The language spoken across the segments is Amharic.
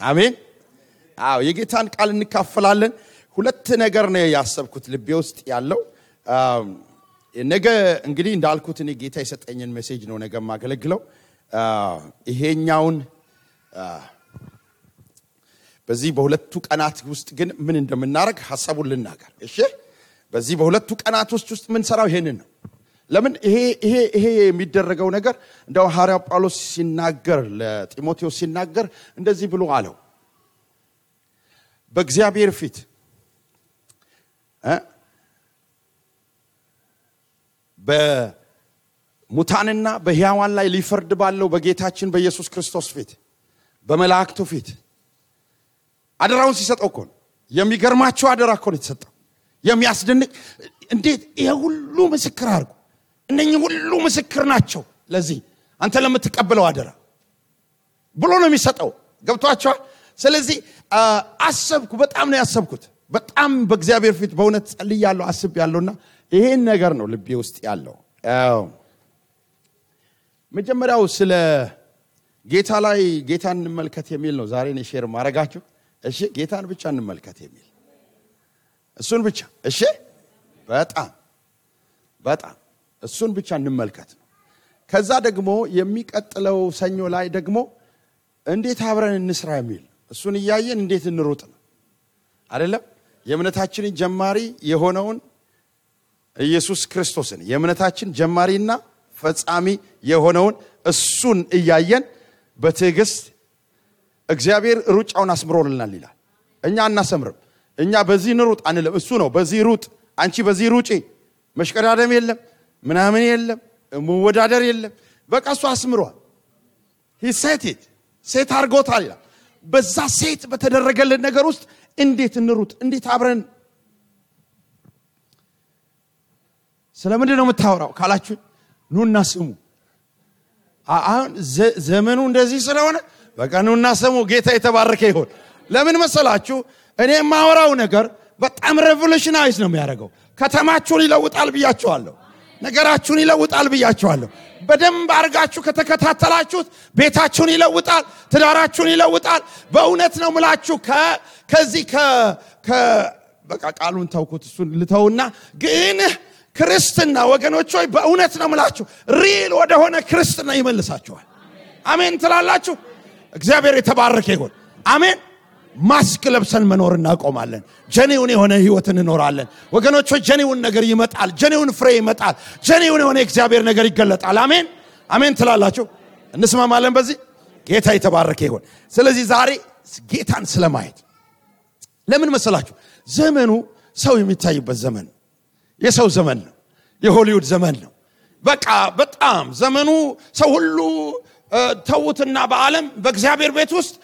አሜን አዎ የጌታን ቃል እንካፈላለን ሁለት ነገር ነው ያሰብኩት ልቤ ውስጥ ያለው ነገ እንግዲህ እንዳልኩት እኔ ጌታ የሰጠኝን ሜሴጅ ነው ነገ ማገለግለው ይሄኛውን በዚህ በሁለቱ ቀናት ውስጥ ግን ምን እንደምናረግ ሐሳቡን ልናገር እሺ በዚህ በሁለቱ ቀናት ውስጥ ምን ሰራው ይሄንን ነው ለምን ይሄ የሚደረገው ነገር እንደው ሐዋርያው ጳውሎስ ሲናገር ለጢሞቴዎስ ሲናገር እንደዚህ ብሎ አለው በእግዚአብሔር ፊት በሙታንና በሕያዋን ላይ ሊፈርድ ባለው በጌታችን በኢየሱስ ክርስቶስ ፊት በመላእክቱ ፊት አደራውን ሲሰጠው እኮ የሚገርማቸው አደራ እኮ ነው የተሰጠው የሚያስደንቅ እንዴት ይሄ ሁሉ ምስክር አርጉ እነኚህ ሁሉ ምስክር ናቸው ለዚህ አንተ ለምትቀበለው አደራ ብሎ ነው የሚሰጠው ገብቷቸው ስለዚህ አሰብኩ በጣም ነው ያሰብኩት በጣም በእግዚአብሔር ፊት በእውነት ጸልያለሁ አስቤያለሁና ይሄን ነገር ነው ልቤ ውስጥ ያለው መጀመሪያው ስለ ጌታ ላይ ጌታን እንመልከት የሚል ነው ዛሬ ነው ሼር ማረጋችሁ እሺ ጌታን ብቻ እንመልከት የሚል እሱን ብቻ እሺ በጣም እሱን ብቻ እንመልከት ነው ከዛ ደግሞ የሚቀጥለው ሰኞ ላይ ደግሞ እንዴት አብረን እንስራ የሚል እሱን ያያየን እንዴት እንሩጥ ነው አይደለም የእምነታችንን ጀማሪ የሆነውን ኢየሱስ ክርስቶስን የእምነታችን ጀማሪና ፈጻሚ የሆነውን እሱን ያያየን በትዕግስት እግዚአብሔር ሩጫውን አስምሮልናል ይላል እኛ እናሰምርም እኛ በዚህ ንሩጥ አንልም እሱ ነው በዚህ ሩጥ አንቺ በዚህ ሩጪ መሽቀዳደም የለም ምናምን የለም መወዳደር የለም በቃ እሱ አስምሯል he set it ሴት አርጎታል ይላል በዛ ሴት በተደረገልን ነገር ውስጥ እንዴት እንሩጥ እንዴት አብረን ስለምንድን ነው የምታወራው ካላችሁ ኑና ስሙ አሁን ዘመኑ እንደዚህ ስለሆነ በቃ ኑና ስሙ ጌታ የተባረከ ይሁን ለምን መሰላችሁ እኔ ማወራው ነገር በጣም ሬቮሉሽናይዝ ነው የሚያደርገው ከተማችሁን ይለውጣል ብያችኋለሁ ነገራችሁን ይለውጣል ብያችኋለሁ በደንብ አርጋችሁ ከተከታተላችሁት ቤታችሁን ይለውጣል ትዳራችሁን ይለውጣል በእውነት ነው ምላችሁ ከዚህ በቃ ቃሉን ተውኩት እሱን ልተውና ግን ክርስትና ወገኖች ሆይ በእውነት ነው ምላችሁ ሪል ወደ ሆነ ክርስትና ይመልሳችኋል አሜን ትላላችሁ እግዚአብሔር የተባረከ ይሁን አሜን ማስክ ለብሰን መኖር እናቆማለን ጀኒውን የሆነ ህይወትን እንኖራለን ወገኖች ሆይ ጀኒውን ነገር ይመጣል ጀኒውን ፍሬ ይመጣል ጀኒውን የሆነ እግዚአብሔር ነገር ይገለጣል አሜን አሜን ትላላችሁ እንስማማለን በዚህ ጌታ የተባረከ ይሁን ስለዚህ ዛሬ ጌታን ስለማየት ለምን መሰላችሁ ዘመኑ ሰው የሚታይበት ዘመን የሰው ዘመን ነው የሆሊውድ ዘመን ነው በቃ በጣም ዘመኑ ሰው ሁሉ ተውትና በዓለም በእግዚአብሔር ቤት ውስጥ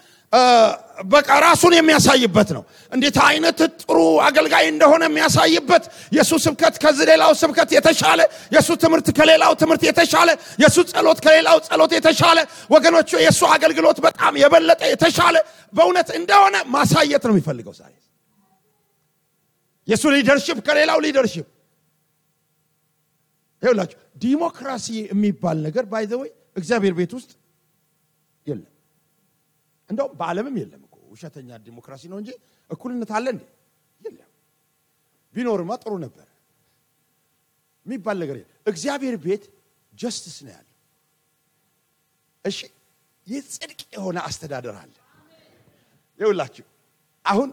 በቃ ራሱን የሚያሳይበት ነው እንዴት አይነት ጥሩ አገልጋይ እንደሆነ የሚያሳይበት ኢየሱስ ስብከት ከሌላው ስብከት የተሻለ ኢየሱስ ትምህርት ከሌላው ትምህርት የተሻለ ኢየሱስ ጸሎት ከሌላው ጸሎት የተሻለ ወገኖች ኢየሱስ አገልግሎት በጣም የበለጠ የተሻለ በእውነት እንደሆነ ማሳየት ነው የሚፈልገው ዛሬ ኢየሱስ ሊደርሺፕ ከሌላው ሊደርሺፕ ይኸውላችሁ ዲሞክራሲ የሚባል ነገር ባይ ዘ ወይ እግዚአብሔር ቤት ውስጥ የለም እንደው በዓለምም የለም እኮ ውሸተኛ ዲሞክራሲ ነው እንጂ እኩልነት አለ እንዴ የለም ቢኖርማ ጥሩ ነበር የሚባል ነገር እግዚአብሔር ቤት ጀስቲስ ነው ያለው እሺ የጽድቅ የሆነ አስተዳደር አለ ይኸውላችሁ አሁን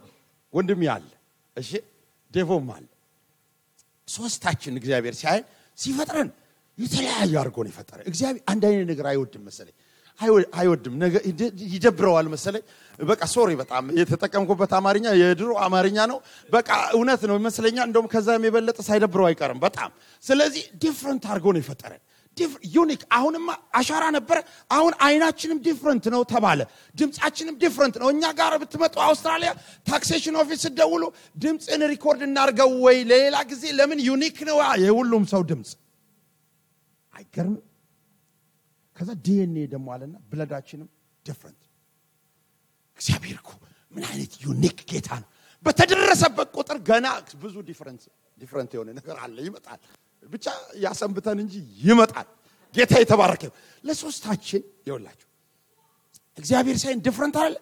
ወንድም ያለ እሺ ዴቮም አለ ሶስታችን እግዚአብሔር ሲፈጥረን የተለያየ አርጎ ነው የፈጠረ እግዚአብሔር አንድ አይነት ነገር አይወድም መሰለኝ አይወድም ነገር ይደብረዋል መሰለኝ በቃ ሶሪ በጣም የተጠቀምኩበት አማርኛ የድሮ አማርኛ ነው በቃ እውነት ነው መስለኛ እንደውም ከዛም የበለጠ ሳይደብረው አይቀርም በጣም ስለዚህ ዲፈረንት አርጎ ነው የፈጠረ ዩኒክ አሁንማ አሻራ ነበር አሁን አይናችንም ዲፈረንት ነው ተባለ ድምጻችንም ዲፈረንት ነው እኛ ጋር ብትመጡ አውስትራሊያ ታክሴሽን ኦፊስ ደውሉ ድምጽን ሪኮርድ እናርገው ወይ ሌላ ጊዜ ለምን ዩኒክ ነው የሁሉም ሰው ድምጽ አይገርም ከዛ ዲኤንኤ ደሞ አለና ብለዳችንም ዲፈረንት እግዚአብሔር እኮ ምን አይነት ዩኒክ ጌታ ነው በተደረሰበት ቁጥር ገና ብዙ ዲፈረንት የሆነ ነገር አለ ይመጣል ብቻ ያሰንብተን እንጂ ይመጣል ጌታ የተባረከ ለሶስታችን ይወላችሁ እግዚአብሔር ሳይን ዲፈረንት አለ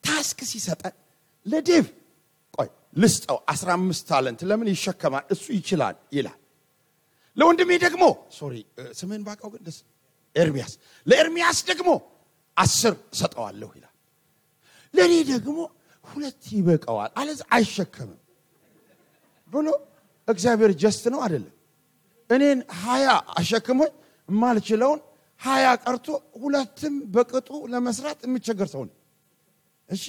ታስክ ሲሰጠን ለዴቭ ቆይ ልስጠው 15 ታለንት ለምን ይሸከማል እሱ ይችላል ይላል። ለወንድሜ ደግሞ ስምን ባቃው ግን ደስ ኤርሚያስ ለኤርሚያስ ደግሞ 10 ሰጠዋለሁ ይላል። ለኔ ደግሞ 2 ይበቃዋል አለዛ አይሸከምም ብሎ እግዚአብሔር ጀስት ነው አይደለም። እኔን 20 አሸክሞኝ ማልችለውን 20 ቀርቶ 2ም በቅጡ ለመስራት የሚቸገር ሰው ነው። እሺ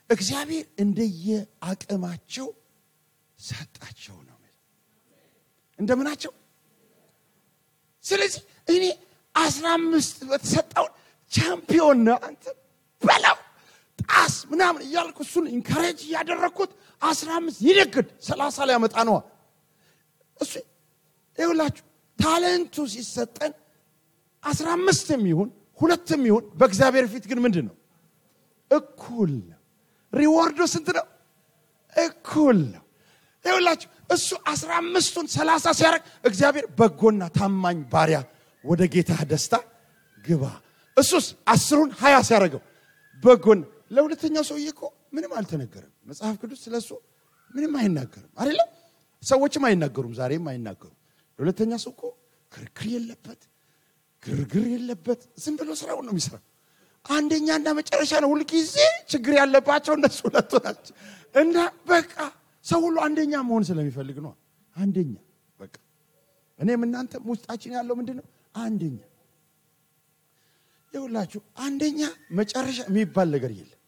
እግዚአብሔር እንደየ አቅማቸው ሰጣቸው ነው እንደምናቸው። ስለዚህ እኔ 15 በተሰጠው ቻምፒዮን ነው አንተ በላው ጣስ ምናምን እያልኩ እሱን ኢንካሬጅ ያደረኩት 15 ይደግድ 30 ላይ ያመጣ ነው እሱ ይኸውላችሁ ታለንቱ ሲሰጠን 15ም ይሁን 2ም ይሁን በእግዚአብሔር ፊት ግን ምንድነው እኩል ነው። ሪዋርዱ ስንት ነው? እኩል ነው። ይኸውላችሁ እሱ 15ቱን 30 ሲያደርግ እግዚአብሔር በጎና ታማኝ ባሪያ ወደ ጌታ ደስታ ግባ። እሱስ 10ን 20 ሲያደርገው በጎን ለሁለተኛው ሰውዬ እኮ ምንም አልተነገረም። መጽሐፍ ቅዱስ ስለሱ ምንም አይናገርም አይደለም። ሰዎችም አይናገሩም ዛሬም አይናገሩም። ለሁለተኛ ሰው እኮ ክርክር የለበት ግርግር የለበት ዝም ብሎ ስራው ነው የሚሰራው። አንደኛና መጨረሻ ነው ሁሉ ጊዜ ችግር ያለባቸው እነሱ ሁለቱ ናቸው። እና በቃ ሰው ሁሉ አንደኛ መሆን ስለሚፈልግ ነው አንደኛ በቃ እኔም እናንተም ውስጣችን ያለው ምንድነው አንደኛ። ይኸውላችሁ አንደኛ መጨረሻ የሚባል ነገር የለም።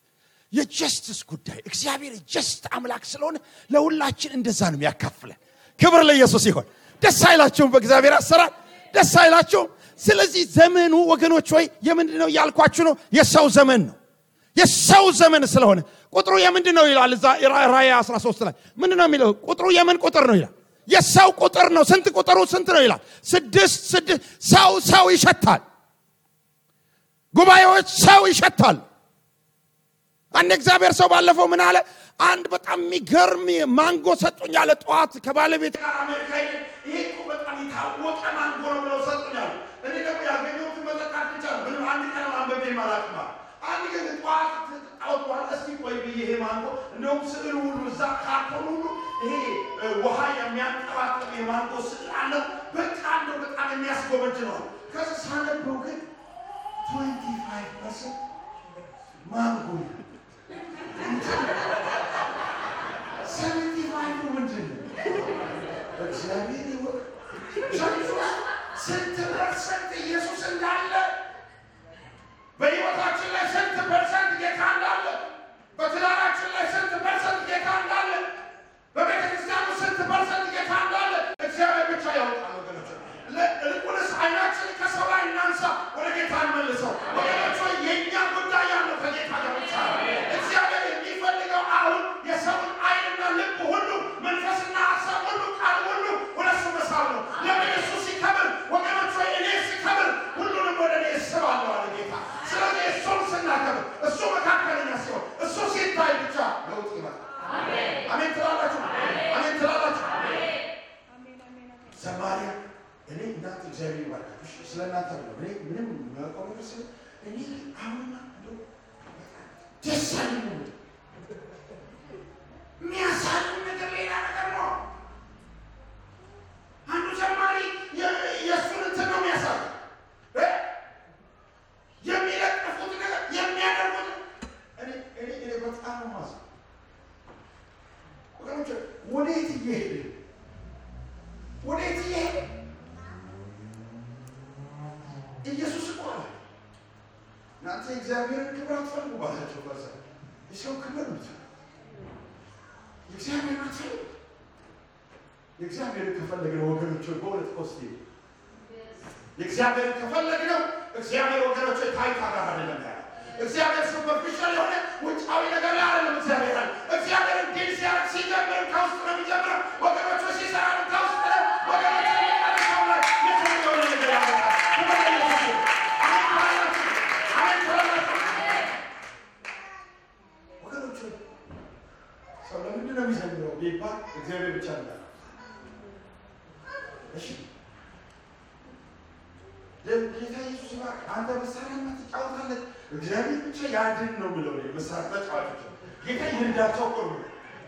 የጀስቲስ ጉዳይ እግዚአብሔር ጀስት አምላክ ስለሆነ ለሁላችን እንደዛ ነው የሚያካፍለን። ክብር ለኢየሱስ ይሁን። ደስ አይላችሁም? በእግዚአብሔር አሰራር ደስ አይላችሁም? ስለዚህ ዘመኑ ወገኖች ሆይ የምንድነው ያልኳችሁ ነው? የሰው ዘመን ነው። የሰው ዘመን ስለሆነ ቁጥሩ የምንድነው ይላል እዛ ራእይ 13 ላይ ምንድነው የሚለው? ቁጥሩ የምን ቁጥር ነው ይላል? የሰው ቁጥር ነው። ስንት ቁጥሩ ስንት ነው ይላል? 6 ሰው ይሸታል። ጉባኤዎች ሰው ይሸታል። አንድ እግዚአብሔር ሰው ባለፈው ምን አለ? አንድ በጣም የሚገርም ማንጎ ሰጡኝ አለ። ጧት ከባለቤት ጋር አሜሪካ ይሄ በጣም የታወቀ ማንጎ ነው ብለው ሰጡኛል። እኔ ደግሞ ያገኘሁት መጠጣት ብቻ ነው። ምንም አንድ ቀን አንበቤ ማላቅማ አንድ ቀን ጧት አውጥቷል። እስቲ ቆይ ብዬ ይሄ ማንጎ እንደውም ስዕሉ ሁሉ እዛ ካርቶን ሁሉ ይሄ ውሃ የሚያንጠባጥብ የማንጎ ስዕል አለው። በቃ እንደው በጣም የሚያስጎበጅ ነው። ከዛ ሳነበው ግን 25% ማንጎ 75 ምንድን ነው? እግዚአብሔር ይወቅ። ስንት ፐርሰንት ኢየሱስ እንዳለ በሕይወታችን ላይ ስንት ፐርሰንት ጌታ እንዳለ በትዳራችን ላይ ስንት ፐርሰንት ጌታ እንዳለ በቤተ ክርስቲያኑ ስንት ፐርሰንት ጌታ እንዳለ እግዚአብሔር ብቻ ያውቃል። ወገኖች ልቁንስ አይናችን ከሰው ላይ እናንሳ፣ ወደ ጌታ እንመልሰው። ወገኖች የእኛ ጉዳይ ያለው ከጌታ ጋር ብቻ ነው። እግዚአብሔር የሚፈልገው አሁን የሰውን አይንና ልብ ሁሉ መንፈስና ሀሳብ ሁሉ ቃል ሁሉ ወደ እሱ መሳብ ነው። ለምን እሱ ሲከብር ወገኖች እኔ ሲከብር ሁሉንም ወደ እኔ እስባለሁ አለ ጌታ። ስለዚህ እሱን ስናከብር እሱ መካከለኛ ሲሆን እሱ ሲታይ ብቻ ለውጥ ይመጣል። አሜን ትላላችሁ? አሜን ትላላችሁ? ዘማሪያ እኔ እናንተ እግዚአብሔር ይባርካችሁ። ስለናንተ ነው እኔ ምንም የማውቀው ነገር ስለ እኔ አሁንማ እንደው ደስ አለኝ የሚያሳዝን ነገር ሌላ ነገር ነው። አንዱ ዘማሪ የእሱን እንትን ነው የሚያሳዝን የሚለጥፉት ነገር የሚያደርጉት እኔ በጣም ነው ማዝነው። ወገኖች ወዴት እየሄደ ኢየሱስ እኮ አለ እናንተ እግዚአብሔርን ክብር አትፈልጉ ባላቸው በዛ የሰው ክብር ነው የእግዚአብሔር አትፈልጉ። የእግዚአብሔርን ከፈለግነው ወገኖች በእውነት ኮስቲ የእግዚአብሔርን ከፈለግነው እግዚአብሔር ወገኖች ታይታ ጋር አይደለም ያለው። እግዚአብሔር ሱፐርፊሻል የሆነ ውጫዊ ነገር ላይ አይደለም። እግዚአብሔር ዲል ሲያደርግ ሲጀምር ከውስጥ ነው የሚጀምረው። ወገኖች ሲሰራ ከውስጥ ነው። ወገኖች ሰው ለምንድን ነው የሚዘምረው ቢባል እግዚአብሔር ብቻ ነው። እሺ ጌታ ኢየሱስ ይባርክ። አንተ መሳሪያ ትጫወታለህ፣ እግዚአብሔር ብቻ ያድን ነው የሚለው መሳሪያ ተጫዋቾች ጌታ ይርዳቸው ቆም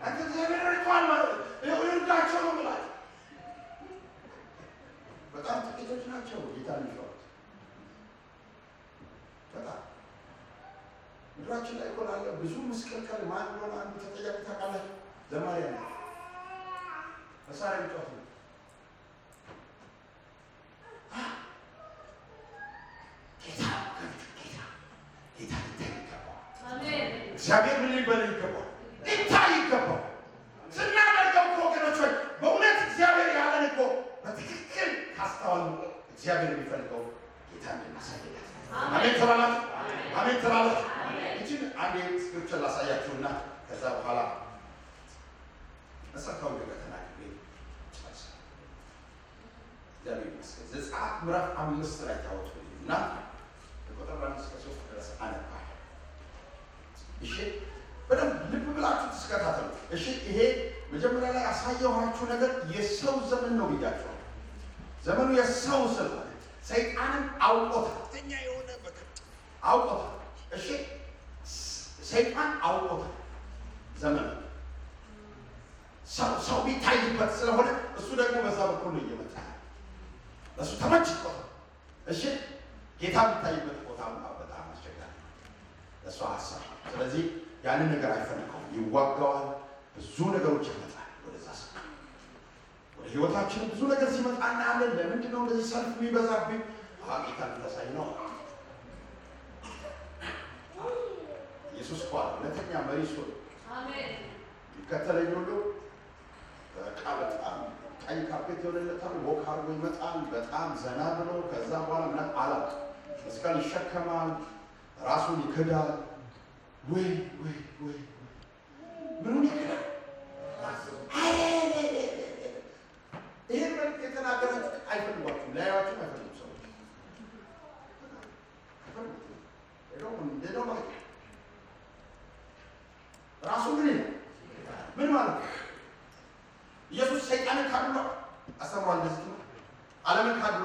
አንተ እግዚአብሔር ረድቷል ማለት ይርዳቸው ነው ማለት በጣም ጥቂቶች ናቸው ጌታ የሚፈሩት። በጣም ምድራችን ላይ ቆላለ ብዙ መስቀልቀል ማን ነው አንዱ ተጠያቂ ታውቃላችሁ? ዘማሪያ ነው መሳሪያ ይጫወታል። እግዚአብሔር ምን ሊበል ይገባል? ይታይ ይገባል። ስናደርገው እኮ ወገኖች ሆይ በእውነት እግዚአብሔር ያለን እኮ በትክክል ካስተዋሉ እግዚአብሔር የሚፈልገው ጌታ እንደማሳየት። አሜን ተባላችሁ። አሜን ተባላችሁ። እቺን አንዴ ስክሪፕቸር ላሳያችሁና ከዛ በኋላ መሰረታዊ ነገር ተናግሬ ጨርሳለሁ። እግዚአብሔር ይመስገን። ዘጸአት ምዕራፍ 5 ላይ ታወጡና ቁጥር 1 እስከ 3 ድረስ አነባለሁ። እሺ በደንብ ልብ ብላችሁ ተስከታተሉ። እሺ ይሄ መጀመሪያ ላይ ያሳየኋችሁ ነገር የሰው ዘመን ነው ብያችኋለሁ። ዘመኑ የሰው ስለሆነ ሰይጣንን አውቆታል። እኛ የሆነ በቃ አውቆታል። እሺ ሰይጣን አውቆታል። ዘመኑ ሰው ቢታይበት ስለሆነ እሱ ደግሞ በዛ በኩል ነው እየመጣ እሱ ተመችቶታል። እሺ ጌታ ቢታይበት ቦታ በጣም አስቸጋሪ ነው እሱ ሀሳብ። ስለዚህ ያንን ነገር አይፈልገውም፣ ይዋጋዋል። ብዙ ነገሮች ይመጣል ወደዛ ሰው ወደ ህይወታችን ብዙ ነገር ሲመጣ እናያለን። ለምንድን ነው እንደዚህ ሰልፍ የሚበዛብኝ? ጌታ ተሳይ ነው። ኢየሱስ ቋል ለተኛ መሪ እሱ አሜን። ይከተለኝ ሁሉ በጣም ቀይ ካፔት የሆነለታል ወክ አድርጎ ይመጣል። በጣም ዘና ብሎ ከዛ በኋላ ምንም አላቅ መስቀል ይሸከማል፣ ራሱን ይክዳል። ወይ ምኑን ይክዳል? ይሄን መልክ የተናገራችሁ አይፈልጓችሁም፣ ላያዋችሁም አይፈልጉም ሰዎች ራሱ ምን ማለት ነው? ኢየሱስ ሰይጣንን ካድሎ አስተምሯል። እንደዚህ ዓለምን ካድሎ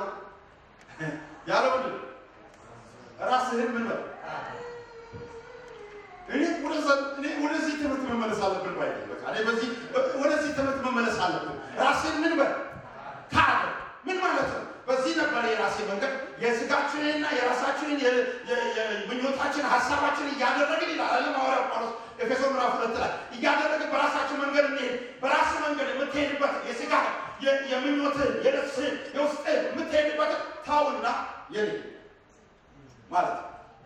ያለው ምንድን ራስህን ምን በል እኔ ወደዚህ ትምህርት መመለስ አለብን ባይ በቃ እኔ በዚህ ወደዚህ ትምህርት መመለስ አለብን። ራስህን ምን በል ካድ ምን ማለት ነው? በዚህ ነበር የራሴ መንገድ የስጋችንና የራሳችንን የምኞታችን ሐሳባችን እያደረግን ይላል ሐዋርያው ጳውሎስ ኤፌሶን ምዕራፍ 2 ላይ እያደረግን በራሳችን መንገድ እንሄድ። በራስ መንገድ የምትሄድበት የስጋ የምኞት የነፍስ የውስጥ የምትሄድበት ታውና የኔ ማለት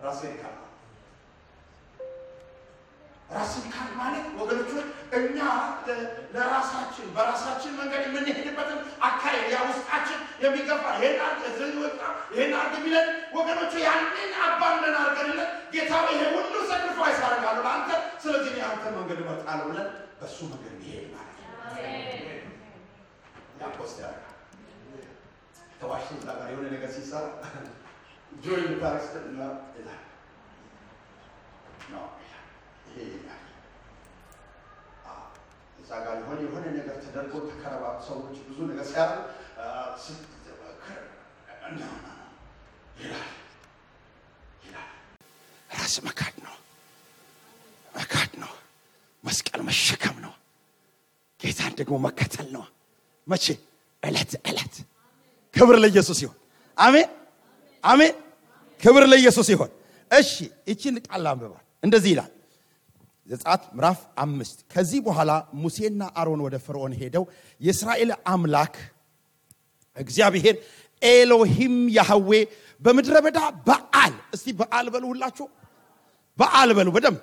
ራስን ካድ ማለት ወገኖች እኛ ለራሳችን በራሳችን መንገድ የምንሄድበትን አካሄድ ያ ውስጣችን የሚገፋ ይሄን አርግ ቢለን ወገኖች ያንን አባንደን አርገንለት ጌታ ይሄ ሁሉ ሰክሪፋይስ አደርጋለሁ ለአንተ፣ ስለዚህ እኔ አንተ መንገድ እመርጣለሁ ብለን በሱ መንገድ ይሄድ ማለት ነው። ያቆስት ያደርጋል። ተዋሽቶ እዛ ጋር የሆነ ነገር ሲሰራ ጆይ ታክስትና ይላል ነው ይሄ እዛ ጋር የሆነ ነገር ተደርጎ ተከረባብ ሰዎች ብዙ ነገር ሲያደርጉ ይላል ራስ መካድ ነው መስቀል መሸከም ነው። ጌታን ደግሞ መከተል ነው። መቼ? ዕለት ክብር ለኢየሱስ ይሁን። አሜን። ክብር ለኢየሱስ ይሁን። እሺ እቺን ቃል አንብባል። እንደዚህ ይላል ዘጸአት ምዕራፍ 5 ከዚህ በኋላ ሙሴና አሮን ወደ ፈርዖን ሄደው የእስራኤል አምላክ እግዚአብሔር ኤሎሂም ያህዌ በምድረ በዳ በዓል፣ እስቲ በዓል በሉ ሁላችሁ፣ በዓል በሉ በደም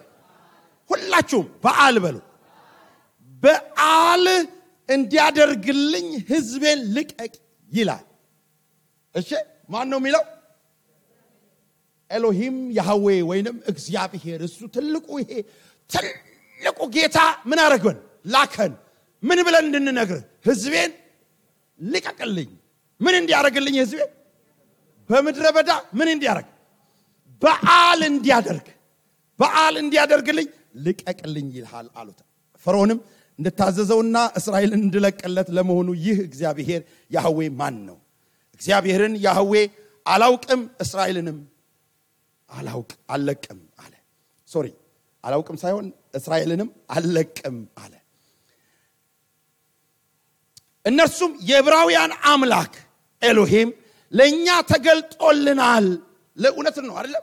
ሁላችሁም በዓል በሉ፣ በዓል እንዲያደርግልኝ ሕዝቤን ልቀቅ ይላል። እሺ ማን ነው የሚለው? ኤሎሂም ያህዌ ወይንም እግዚአብሔር። እሱ ትልቁ ጌታ ምን አረገን? ላከን። ምን ብለን እንድንነግር? ሕዝቤን ልቀቅልኝ። ምን እንዲያደርግልኝ? ሕዝቤን በምድረ በዳ ምን እንዲያደርግ? በዓል እንዲያደርግልኝ ልቀቅልኝ ይልሃል አሉት። ፈርዖንም እንድታዘዘውና እስራኤልን እንድለቅለት ለመሆኑ ይህ እግዚአብሔር ያህዌ ማን ነው? እግዚአብሔርን ያህዌ አላውቅም እስራኤልንም አለቅም አለ። ሶሪ አላውቅም ሳይሆን እስራኤልንም አለቅም አለ። እነርሱም የዕብራውያን አምላክ ኤሎሂም ለኛ ተገልጦልናል። ለእውነት ነው አይደል?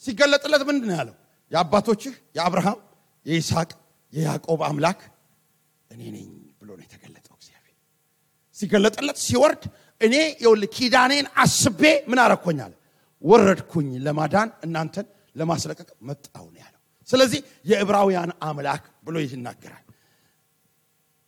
ሲገለጥለት ምንድነው ያለው? የአባቶችህ የአብርሃም የይስሐቅ የያዕቆብ አምላክ እኔ ነኝ ብሎ ነው የተገለጠው። እግዚአብሔር ሲገለጥለት ሲወርድ እኔ ኪዳኔን አስቤ ምን አረኩኛል? ወረድኩኝ ለማዳን እናንተን ለማስለቀቅ መጣው ነው ያለው። ስለዚህ የዕብራውያን አምላክ ብሎ ይናገራል።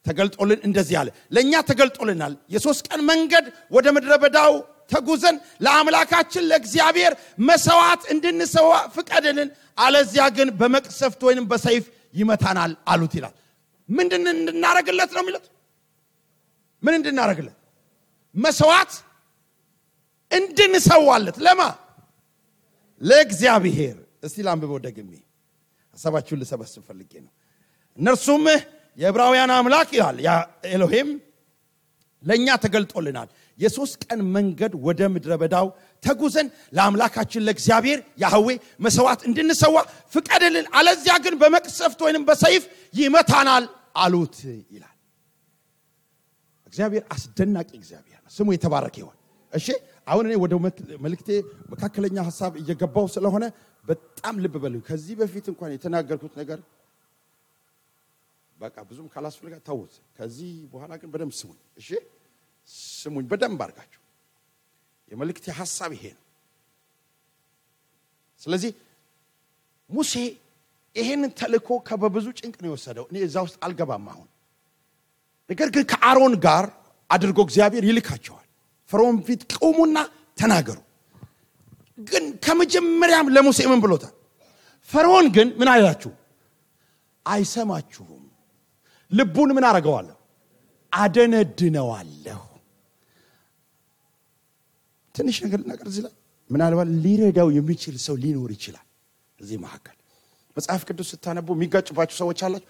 ተገልጦልን እንደዚህ አለ። ለኛ ተገልጦልናል። የ3 ቀን መንገድ ወደ ምድረ በዳው ተጉዘን ለአምላካችን ለእግዚአብሔር መስዋዕት እንድንሰዋ ፍቀድልን፣ አለዚያ ግን በመቅሰፍት ወይንም በሰይፍ ይመታናል አሉት ይላል። ምንድን እንድናረግለት ነው የሚሉት? ምን እንድናረግለት? መስዋዕት እንድንሰዋለት። ለማ? ለእግዚአብሔር። እስቲ ላንብበው ደግሜ ሐሳባችሁን ልሰበስብ ፈልጌ ነው። እነርሱም የዕብራውያን አምላክ ይላል ያ ኤሎሂም ለኛ ተገልጦልናል። የ3 ቀን መንገድ ወደ ምድረ በዳው ተጉዘን ለአምላካችን ለእግዚአብሔር ያህዌ መስዋዕት እንድንሰዋ ፍቀድልን፣ አለዚያ ግን በመቅሰፍት ወይንም በሰይፍ ይመታናል አሉት ይላል። እግዚአብሔር አስደናቂ እግዚአብሔር ነው። ስሙ የተባረከ ይሁን። እሺ አሁን እኔ ወደ መልእክቴ መካከለኛ ሐሳብ እየገባው ስለሆነ በጣም ልብ በሉ። ከዚህ በፊት እንኳን የተናገርኩት ነገር በቃ ብዙም ካላስፈልጋ ተውት። ከዚህ በኋላ ግን በደንብ ስሙኝ። እሺ ስሙኝ በደንብ አድርጋችሁ። የመልእክቴ ሐሳብ ይሄ ነው። ስለዚህ ሙሴ ይሄንን ተልእኮ ከበብዙ ጭንቅ ነው የወሰደው። እኔ እዛ ውስጥ አልገባም አሁን። ነገር ግን ከአሮን ጋር አድርጎ እግዚአብሔር ይልካቸዋል። ፈርዖን ፊት ቆሙና ተናገሩ። ግን ከመጀመሪያም ለሙሴ ምን ብሎታል? ፈርዖን ግን ምን አይላችሁ? አይሰማችሁም። ልቡን ምን አረጋዋለሁ? አደነድነዋለሁ። ትንሽ ነገር እዚህ ላይ ምናልባት ሊረዳው የሚችል ሰው ሊኖር ይችላል። እዚህ መካከል መጽሐፍ ቅዱስ ስታነቡ የሚጋጭባችሁ ሰዎች አላችሁ።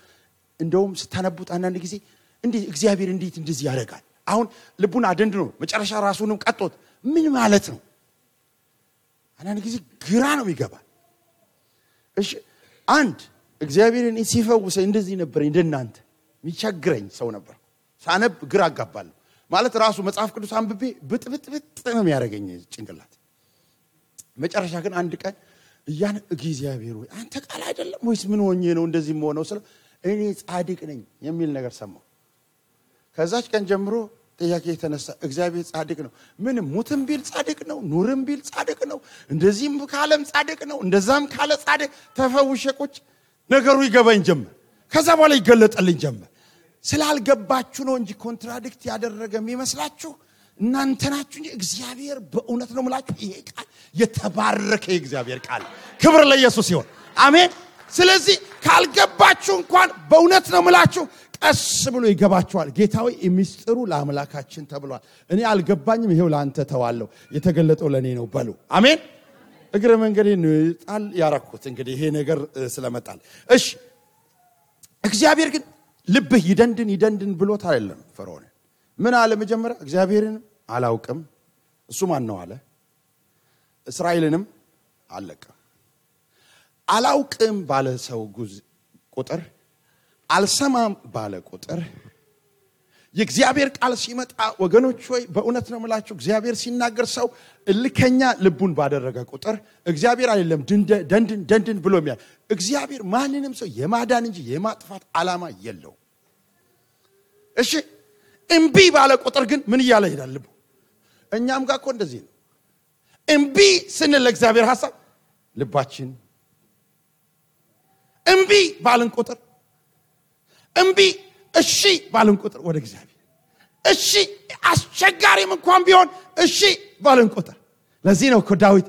እንደውም ስታነቡት አንዳንድ ጊዜ እንዴ እግዚአብሔር እንዴት እንደዚህ ያደርጋል? አሁን ልቡን አደንድኖ መጨረሻ ራሱንም ቀጥቶት ምን ማለት ነው? አንዳንድ ጊዜ ግራ ነው ይገባል። እሺ አንድ እግዚአብሔርን ሲፈውሰ እንደዚህ ነበር እንደናንተ የሚቸግረኝ ሰው ነበር። ሳነብ ግራ አጋባለሁ ማለት ራሱ መጽሐፍ ቅዱስ አንብቤ ብጥብጥ ነው የሚያደርገኝ ጭንቅላት። መጨረሻ ግን አንድ ቀን እያን እግዚአብሔር ወይ አንተ ቃል አይደለም ወይስ ምን ሆኜ ነው እንደዚህ የምሆነው ስለ እኔ ጻድቅ ነኝ የሚል ነገር ሰማሁ። ከዛች ቀን ጀምሮ ጥያቄ የተነሳ እግዚአብሔር ጻድቅ ነው። ምንም ሙትም ቢል ጻድቅ ነው፣ ኑርም ቢል ጻድቅ ነው፣ እንደዚህም ካለም ጻድቅ ነው፣ እንደዛም ካለ ጻድቅ። ተፈውሼ ቁጭ ነገሩ ይገባኝ ጀመር። ከዛ በኋላ ይገለጠልኝ ጀመር። ስላልገባችሁ ነው እንጂ ኮንትራዲክት ያደረገ የሚመስላችሁ እናንተ ናችሁ እንጂ እግዚአብሔር በእውነት ነው የምላችሁ። ይሄ ቃል የተባረከ የእግዚአብሔር ቃል። ክብር ለኢየሱስ ይሁን። አሜን። ስለዚህ ካልገባችሁ እንኳን በእውነት ነው የምላችሁ ቀስ ብሎ ይገባችኋል። ጌታዊ የሚስጥሩ ለአምላካችን ተብሏል። እኔ አልገባኝም፣ ይሄው ላንተ ተዋለሁ፣ የተገለጠው ለኔ ነው በሉ። አሜን። እግረ መንገዴን ጣል ያረኩት እንግዲህ ይሄ ነገር ስለመጣል። እሺ እግዚአብሔር ግን ልብህ ይደንድን ብሎት አይደለም ፈርዖን። ምን አለ መጀመሪያ? እግዚአብሔርን አላውቅም እሱ ማን ነው አለ። እስራኤልንም አለቀም። አላውቅም ባለ ሰው ቁጥር፣ አልሰማም ባለ ቁጥር የእግዚአብሔር ቃል ሲመጣ ወገኖች ሆይ በእውነት ነው የምላችሁ እግዚአብሔር ሲናገር ሰው እልከኛ ልቡን ባደረገ ቁጥር እግዚአብሔር አይደለም ደንድን ብሎ የሚያል። እግዚአብሔር ማንንም ሰው የማዳን እንጂ የማጥፋት ዓላማ የለው። እሺ እምቢ ባለ ቁጥር ግን ምን እያለ ይሄዳል ልቡ? እኛም ጋር እኮ እንደዚህ ነው። እምቢ ስንል ለእግዚአብሔር ሐሳብ ልባችን እምቢ ባልን ቁጥር እምቢ እሺ ባልን ቁጥር ወደ እግዚአብሔር እሺ አስቸጋሪም እንኳን ቢሆን እሺ ባልን ቁጥር። ለዚህ ነው እኮ ዳዊት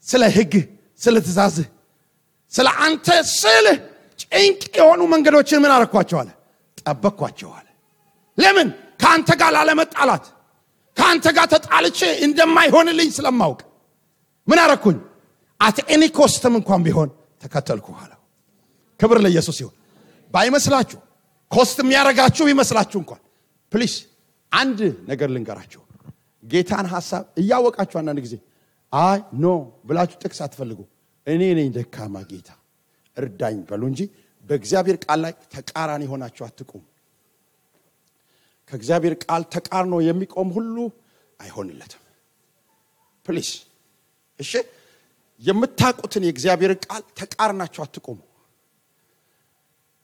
ስለ ሕግ ስለ ትእዛዝ ስለ አንተ ስለ ጭንቅ የሆኑ መንገዶችን ምን አረኳቸው አለ? ጠበቅኳቸው አለ። ለምን? ካንተ ጋር ላለመጣላት ካንተ ጋር ተጣልቼ እንደማይሆንልኝ ስለማውቅ ምን አረኩኝ? አት ኤኒ ኮስትም እንኳን ቢሆን ተከተልኩ አለ። ክብር ለኢየሱስ ይሁን። ባይመስላችሁ ኮስት የሚያረጋችሁ ይመስላችሁ እንኳን ፕሊስ አንድ ነገር ልንገራችሁ። ጌታን ሐሳብ እያወቃችሁ አንዳንድ ጊዜ አይ ኖ ብላችሁ ጥቅስ አትፈልጉ። እኔ ነኝ ደካማ ጌታ እርዳኝ በሉ እንጂ በእግዚአብሔር ቃል ላይ ተቃራኒ ሆናችሁ አትቆሙ። ከእግዚአብሔር ቃል ተቃርኖ የሚቆም ሁሉ አይሆንለትም። ፕሊዝ እሺ፣ የምታውቁትን የእግዚአብሔር ቃል ተቃርናችሁ አትቆሙ።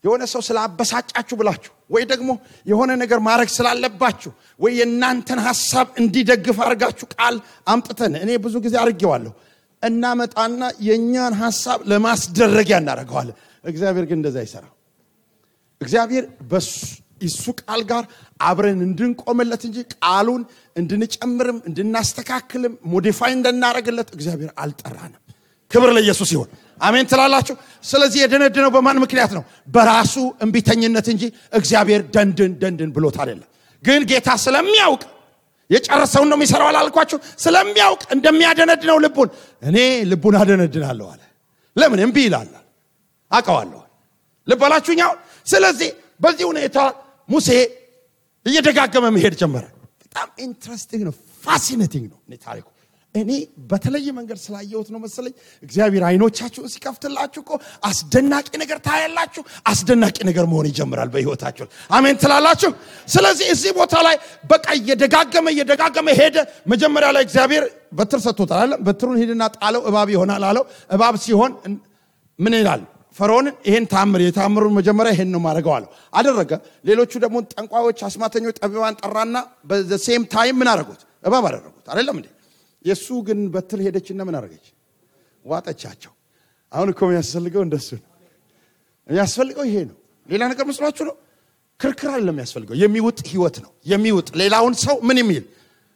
የሆነ ሰው ስላበሳጫችሁ ብላችሁ ወይ ደግሞ የሆነ ነገር ማድረግ ስላለባችሁ ወይ የናንተን ሐሳብ እንዲደግፍ አርጋችሁ ቃል አምጥተን እኔ ብዙ ጊዜ አርጌዋለሁ እናመጣና የኛን ሐሳብ ለማስደረግ ያናረጋዋል። እግዚአብሔር ግን እንደዛ አይሰራም። እግዚአብሔር በሱ ቃል ጋር አብረን እንድንቆምለት እንጂ ቃሉን እንድንጨምርም እንድናስተካክልም ሞዲፋይ እንድናረግለት እግዚአብሔር አልጠራንም። ክብር ለኢየሱስ ይሁን። አሜን ትላላችሁ። ስለዚህ የደነደነው በማን ምክንያት ነው? በራሱ እንቢተኝነት እንጂ እግዚአብሔር ደንድን ብሎት አይደለም። ግን ጌታ ስለሚያውቅ የጨረሰው ነው የሚሰራው አላልኳችሁ? ስለሚያውቅ እንደሚያደነድነው ልቡን እኔ ልቡን አደነድናለሁ አለ። ለምን እምቢ ይላል? አውቀዋለሁ። ልብ አላችሁኛው። ስለዚህ በዚህ ሁኔታ ሙሴ እየደጋገመ መሄድ ጀመረ። በጣም ኢንትረስቲንግ ነው፣ ፋሲኔቲንግ ነው ታሪኩ። እኔ በተለየ መንገድ ስላየሁት ነው መሰለኝ እግዚአብሔር አይኖቻችሁ ሲከፍትላችሁ እኮ አስደናቂ ነገር ታያላችሁ። አስደናቂ ነገር መሆን ይጀምራል በህይወታችሁ። አሜን ትላላችሁ። ስለዚህ እዚህ ቦታ ላይ በቃ እየደጋገመ ሄደ። መጀመሪያ ላይ እግዚአብሔር በትር ሰጥቶታል አይደል? በትሩን ሄድና ጣለው እባብ ይሆናል አለው። እባብ ሲሆን ምን ይላል? ፈርዖን ይሄን የታምሩን መጀመሪያ ይሄን ነው ማድረገው አለው። አደረገ። ሌሎቹ ደግሞ ጠንቋዮች፣ አስማተኞች፣ ጠቢባን ጠራና በሴም ታይም ምን አደረጉት? እባብ አደረጉት አይደለም እንዴ? የሱ ግን በትር ሄደችና ምን አደረገች? ዋጠቻቸው። አሁን እኮ የሚያስፈልገው እንደሱ ነው። የሚያስፈልገው ይሄ ነው። ሌላ ነገር መስሏችሁ ነው? ክርክር አይደለም የሚያስፈልገው። የሚውጥ ህይወት ነው። የሚውጥ ሌላውን ሰው ምን የሚል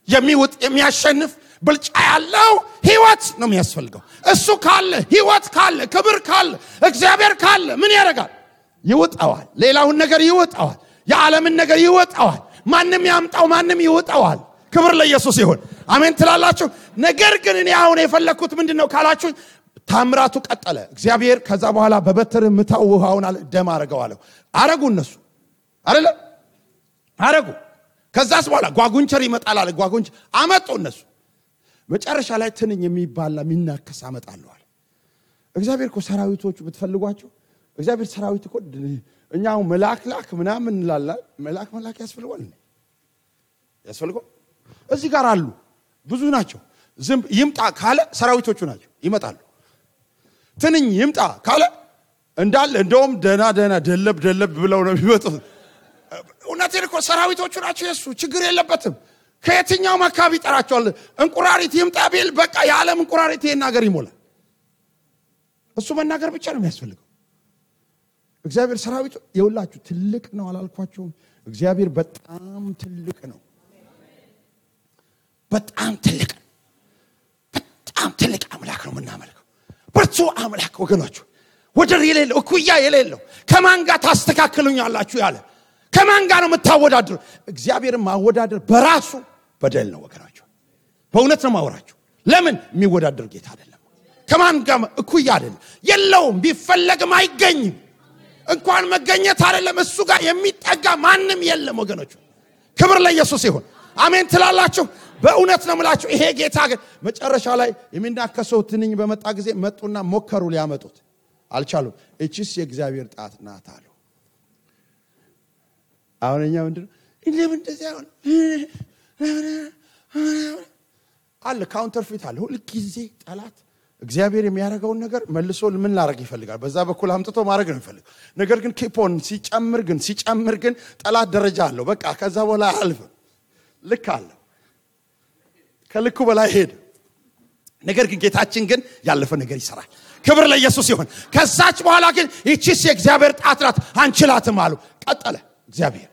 የሚውጥ የሚያሸንፍ ብልጫ ያለው ህይወት ነው የሚያስፈልገው። እሱ ካለ ህይወት ካለ ክብር ካለ እግዚአብሔር ካለ ምን ያደርጋል? ይውጣዋል። ሌላውን ነገር ይውጣዋል። የዓለምን ነገር ይውጣዋል። ማንም ያምጣው ማንም ይውጣዋል። ክብር ለኢየሱስ ይሁን። አሜን ትላላችሁ። ነገር ግን እኔ አሁን የፈለኩት ምንድነው ካላችሁ ታምራቱ ቀጠለ። እግዚአብሔር ከዛ በኋላ በበትር ምታው ውሃውን ደም አረጋዋለሁ አረጉ። እነሱ አይደለ አረጉ። ከዛስ በኋላ ጓጉንቸር ይመጣል አለ። ጓጉንቸር አመጡ እነሱ። መጨረሻ ላይ ትንኝ የሚባል የሚናከስ አመጣለሁ አለ። እግዚአብሔር እኮ ሰራዊቶቹ ብትፈልጓቸው እግዚአብሔር ሰራዊት እኮ እኛው መላክ ምናምን እንላለን። መላክ ያስፈልገው እዚህ ጋር አሉ ብዙ ናቸው። ዝንብ ይምጣ ካለ ሰራዊቶቹ ናቸው ይመጣሉ። ትንኝ ይምጣ ካለ እንዳለ እንደውም ደና ደለብ ብለው ነው የሚመጡት። እውነቴን እኮ ሰራዊቶቹ ናቸው። የሱ ችግር የለበትም። ከየትኛው አካባቢ ይጠራቸዋል። እንቁራሪት ይምጣ ቢል በቃ የዓለም እንቁራሪት ይሄን ነገር ይሞላል። እሱ መናገር ብቻ ነው የሚያስፈልገው። እግዚአብሔር ሰራዊቱ የሁላችሁ ትልቅ ነው አላልኳችሁም? እግዚአብሔር በጣም ትልቅ ነው። በጣም ትልቅ አምላክ ነው የምናመልከው። ብርቱ አምላክ ወገኖች፣ ወደር የሌለው እኩያ የሌለው ከማን ጋር ታስተካክሉኛላችሁ ያለ ከማን ጋር ነው የምታወዳድሩ? እግዚአብሔርን ማወዳደር በራሱ በደል ነው ወገኖች። በእውነት ነው ማወራችሁ። ለምን የሚወዳደር ጌታ አይደለም። ከማን ጋር እኩያ አይደለም። የለውም፣ ቢፈለግም አይገኝም። እንኳን መገኘት አይደለም እሱ ጋር የሚጠጋ ማንም የለም ወገኖች። ክብር ለኢየሱስ ይሁን። አሜን ትላላችሁ። በእውነት ነው የምላችሁ። ይሄ ጌታ ግን መጨረሻ ላይ የሚናከሰው ትንኝ በመጣ ጊዜ መጡና ሞከሩ ሊያመጡት አልቻሉም። እቺስ የእግዚአብሔር ጣት ናት አሉ። አሁንኛ ምንድነው ለምን እንደዚህ አሁን አለ ካውንተርፊት አለ። ሁሉ ጊዜ ጠላት እግዚአብሔር የሚያረጋውን ነገር መልሶ ምን ላረግ ይፈልጋል? በዛ በኩል አምጥቶ ማድረግ ነው የሚፈልገው። ነገር ግን ኪፖን ሲጨምር ግን ጠላት ደረጃ አለው። በቃ ከዛ በኋላ አልፈ ልክ አለ ከልኩ በላይ ሄደ። ነገር ግን ጌታችን ግን ያለፈ ነገር ይሰራል። ክብር ለኢየሱስ ይሁን። ከዛች በኋላ ግን እቺስ የእግዚአብሔር ጣት ናት አንችላትም አሉ። ቀጠለ እግዚአብሔር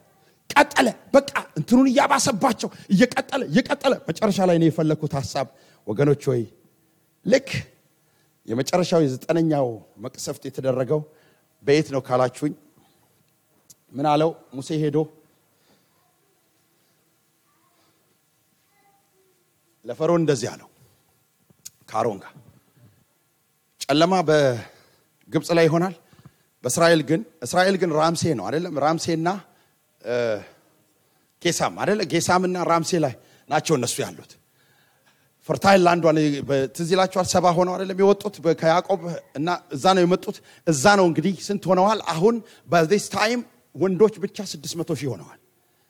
ቀጠለ። በቃ እንትኑን ያባሰባቸው እየቀጠለ መጨረሻ ላይ ነው የፈለኩት ሐሳብ ወገኖች ሆይ ልክ የመጨረሻው የ9ኛው መቅሰፍት የተደረገው በየት ነው ካላችሁኝ ምን አለው ሙሴ ሄዶ ለፈርዖን እንደዚህ አለው ከአሮን ጋር ጨለማ በግብጽ ላይ ይሆናል እስራኤል ግን ራምሴ ነው አይደለም ራምሴና ጌሳም አይደለ ጌሳምና ራምሴ ላይ ናቸው እነሱ ያሉት ፈርታይል ላንድ ዋን በትዝላቸው 70 ሆነው አይደለም የወጡት ከያዕቆብ እና እዛ ነው የመጡት እዛ ነው እንግዲህ ስንት ሆነዋል አሁን በዚህ ታይም ወንዶች ብቻ 600,000 ሆነዋል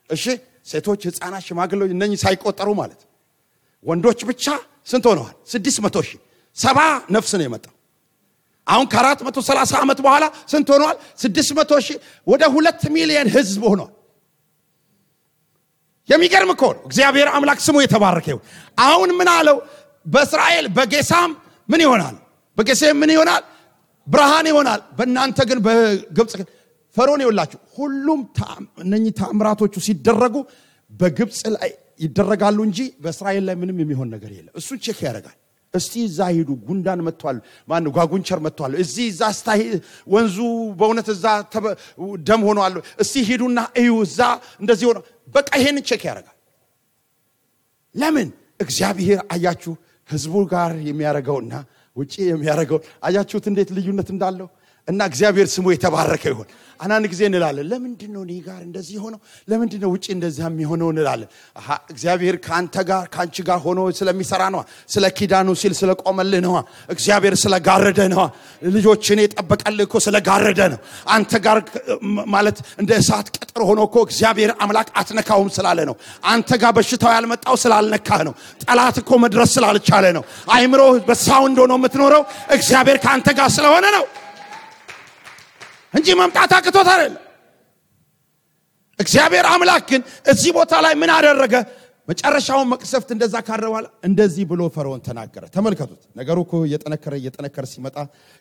እሺ ሴቶች ህፃናት ሽማግሌዎች እነኚህ ሳይቆጠሩ ማለት ወንዶች ብቻ ስንት ሆነዋል 600,000 70 ነፍስ ነው የመጣው አሁን ከ430 ዓመት በኋላ ስንት ሆነዋል 600,000 ወደ 2 ሚሊዮን ህዝብ ሆነዋል የሚገርም እኮ ነው እግዚአብሔር አምላክ ስሙ የተባረከ ይሁን አሁን ምን አለው በእስራኤል በጌሳም ምን ይሆናል በጌሴም ምን ይሆናል ብርሃን ይሆናል በእናንተ ግን በግብጽ ፈርዖን ይወላችሁ ሁሉም እነኚህ ተአምራቶቹ ሲደረጉ በግብጽ ላይ ይደረጋሉ እንጂ በእስራኤል ላይ ምንም የሚሆን ነገር የለም እሱ ቼክ ያደርጋል እስቲ እዛ ሄዱ ጉንዳን መጥቷል ማን ነው ጓጉንቸር መጥቷል እዚህ እዛ ስታይ ወንዙ በእውነት እዛ ደም ሆኗል እስቲ ሄዱና እዩ እዛ እንደዚህ ሆነ በቃ ይሄን ቼክ ያደርጋል ለምን እግዚአብሔር አያችሁ ህዝቡ ጋር የሚያረጋውና ውጪ የሚያረጋው አያችሁት እንዴት ልዩነት እንዳለው እና እግዚአብሔር ስሙ የተባረከ ይሁን አናን ጊዜ እንላለን ለምንድን ነው እኔ ጋር እንደዚህ ሆነው ለምንድን ነው ውጪ እንደዚህ የሚሆነው እንላለን እግዚአብሔር ካንተ ጋር ካንቺ ጋር ሆኖ ስለሚሰራ ነው ስለ ኪዳኑ ሲል ስለቆመልህ ነው እግዚአብሔር ስለጋረደ ነው ልጆችን የጠበቀልህ እኮ ስለጋረደ ነው አንተ ጋር ማለት እንደ እሳት ቅጥር ሆኖ እኮ እግዚአብሔር አምላክ አትነካውም ስላለ ነው አንተ ጋር በሽታው ያልመጣው ስላልነካህ ነው ጠላት እኮ መድረስ ስላልቻለ ነው አይምሮ በሳውንድ ሆኖ የምትኖረው እግዚአብሔር ካንተ ጋር ስለሆነ ነው እንጂ መምጣት አቅቶት አይደለም እግዚአብሔር አምላክ ግን እዚህ ቦታ ላይ ምን አደረገ መጨረሻው መቅሰፍት እንደዛ ካረዋል እንደዚህ ብሎ ፈርዖን ተናገረ ተመልከቱት ነገሩ እኮ እየጠነከረ ሲመጣ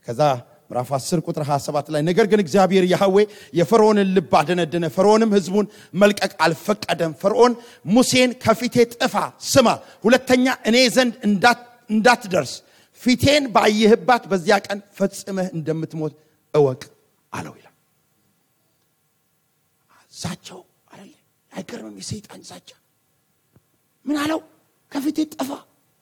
ከዛ ምዕራፍ 10 ቁጥር 27 ላይ ነገር ግን እግዚአብሔር ያህዌ የፈርዖንን ልብ አደነደነ ፈርዖንም ህዝቡን መልቀቅ አልፈቀደም ፈርዖን ሙሴን ከፊቴ ጥፋ ስማ ሁለተኛ እኔ ዘንድ እንዳትደርስ ፊቴን ባየህባት በዚያ ቀን ፈጽመህ እንደምትሞት እወቅ አለው ይላል ዛቻው አይደል አይገርምም የሰይጣን ዛቻ ምን አለው ከፊቴ ጥፋ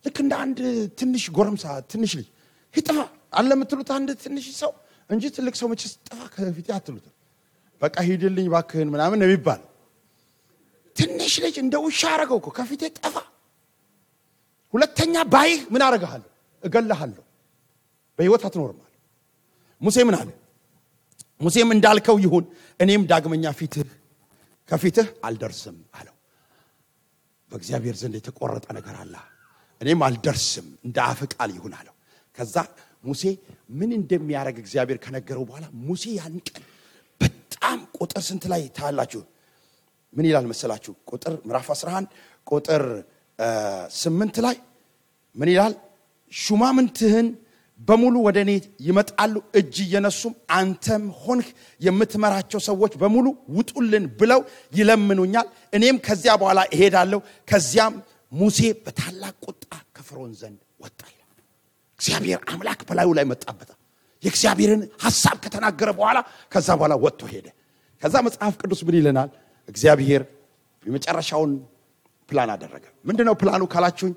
ልክ እንደ አንድ ትንሽ ጎረምሳ ትንሽ ልጅ ይጥፋ አለ የምትሉት አንድ ትንሽ ሰው እንጂ ትልቅ ሰው መቼስ ጥፋ ከፊቴ አትሉት በቃ ሂድልኝ ባክህን ምናምን ነው የሚባለው ትንሽ ልጅ እንደ ውሻ አረገው እኮ ከፊቴ ጥፋ ሁለተኛ ባይህ ምን አረጋለሁ እገልሃለሁ በህይወት አትኖርም አለ ሙሴ ምን አለ ሙሴም እንዳልከው ይሁን እኔም ዳግመኛ ከፊትህ አልደርስም አለው በእግዚአብሔር ዘንድ የተቆረጠ ነገር አለ እኔም አልደርስም እንደ አፍ ቃል ይሁን አለው ከዛ ሙሴ ምን እንደሚያረግ እግዚአብሔር ከነገረው በኋላ ሙሴ ያን ቀን በጣም ቁጥር ስንት ላይ ታላችሁ ምን ይላል መሰላችሁ ቁጥር ምዕራፍ 11 ቁጥር 8 ላይ ምን ይላል ሹማምንትህን በሙሉ ወደኔ ይመጣሉ እጅ የነሱም አንተም ሆንክ የምትመራቸው ሰዎች በሙሉ ውጡልን ብለው ይለምኑኛል እኔም ከዚያ በኋላ እሄዳለሁ ከዚያም ሙሴ በታላቅ ቁጣ ከፈርዖን ዘንድ ወጣ ይላል እግዚአብሔር አምላክ በላዩ ላይ መጣበት የእግዚአብሔርን ሐሳብ ከተናገረ በኋላ ከዛ በኋላ ወጥቶ ሄደ ከዛ መጽሐፍ ቅዱስ ምን ይለናል እግዚአብሔር የመጨረሻውን ፕላን አደረገ ምንድነው ፕላኑ ካላችሁኝ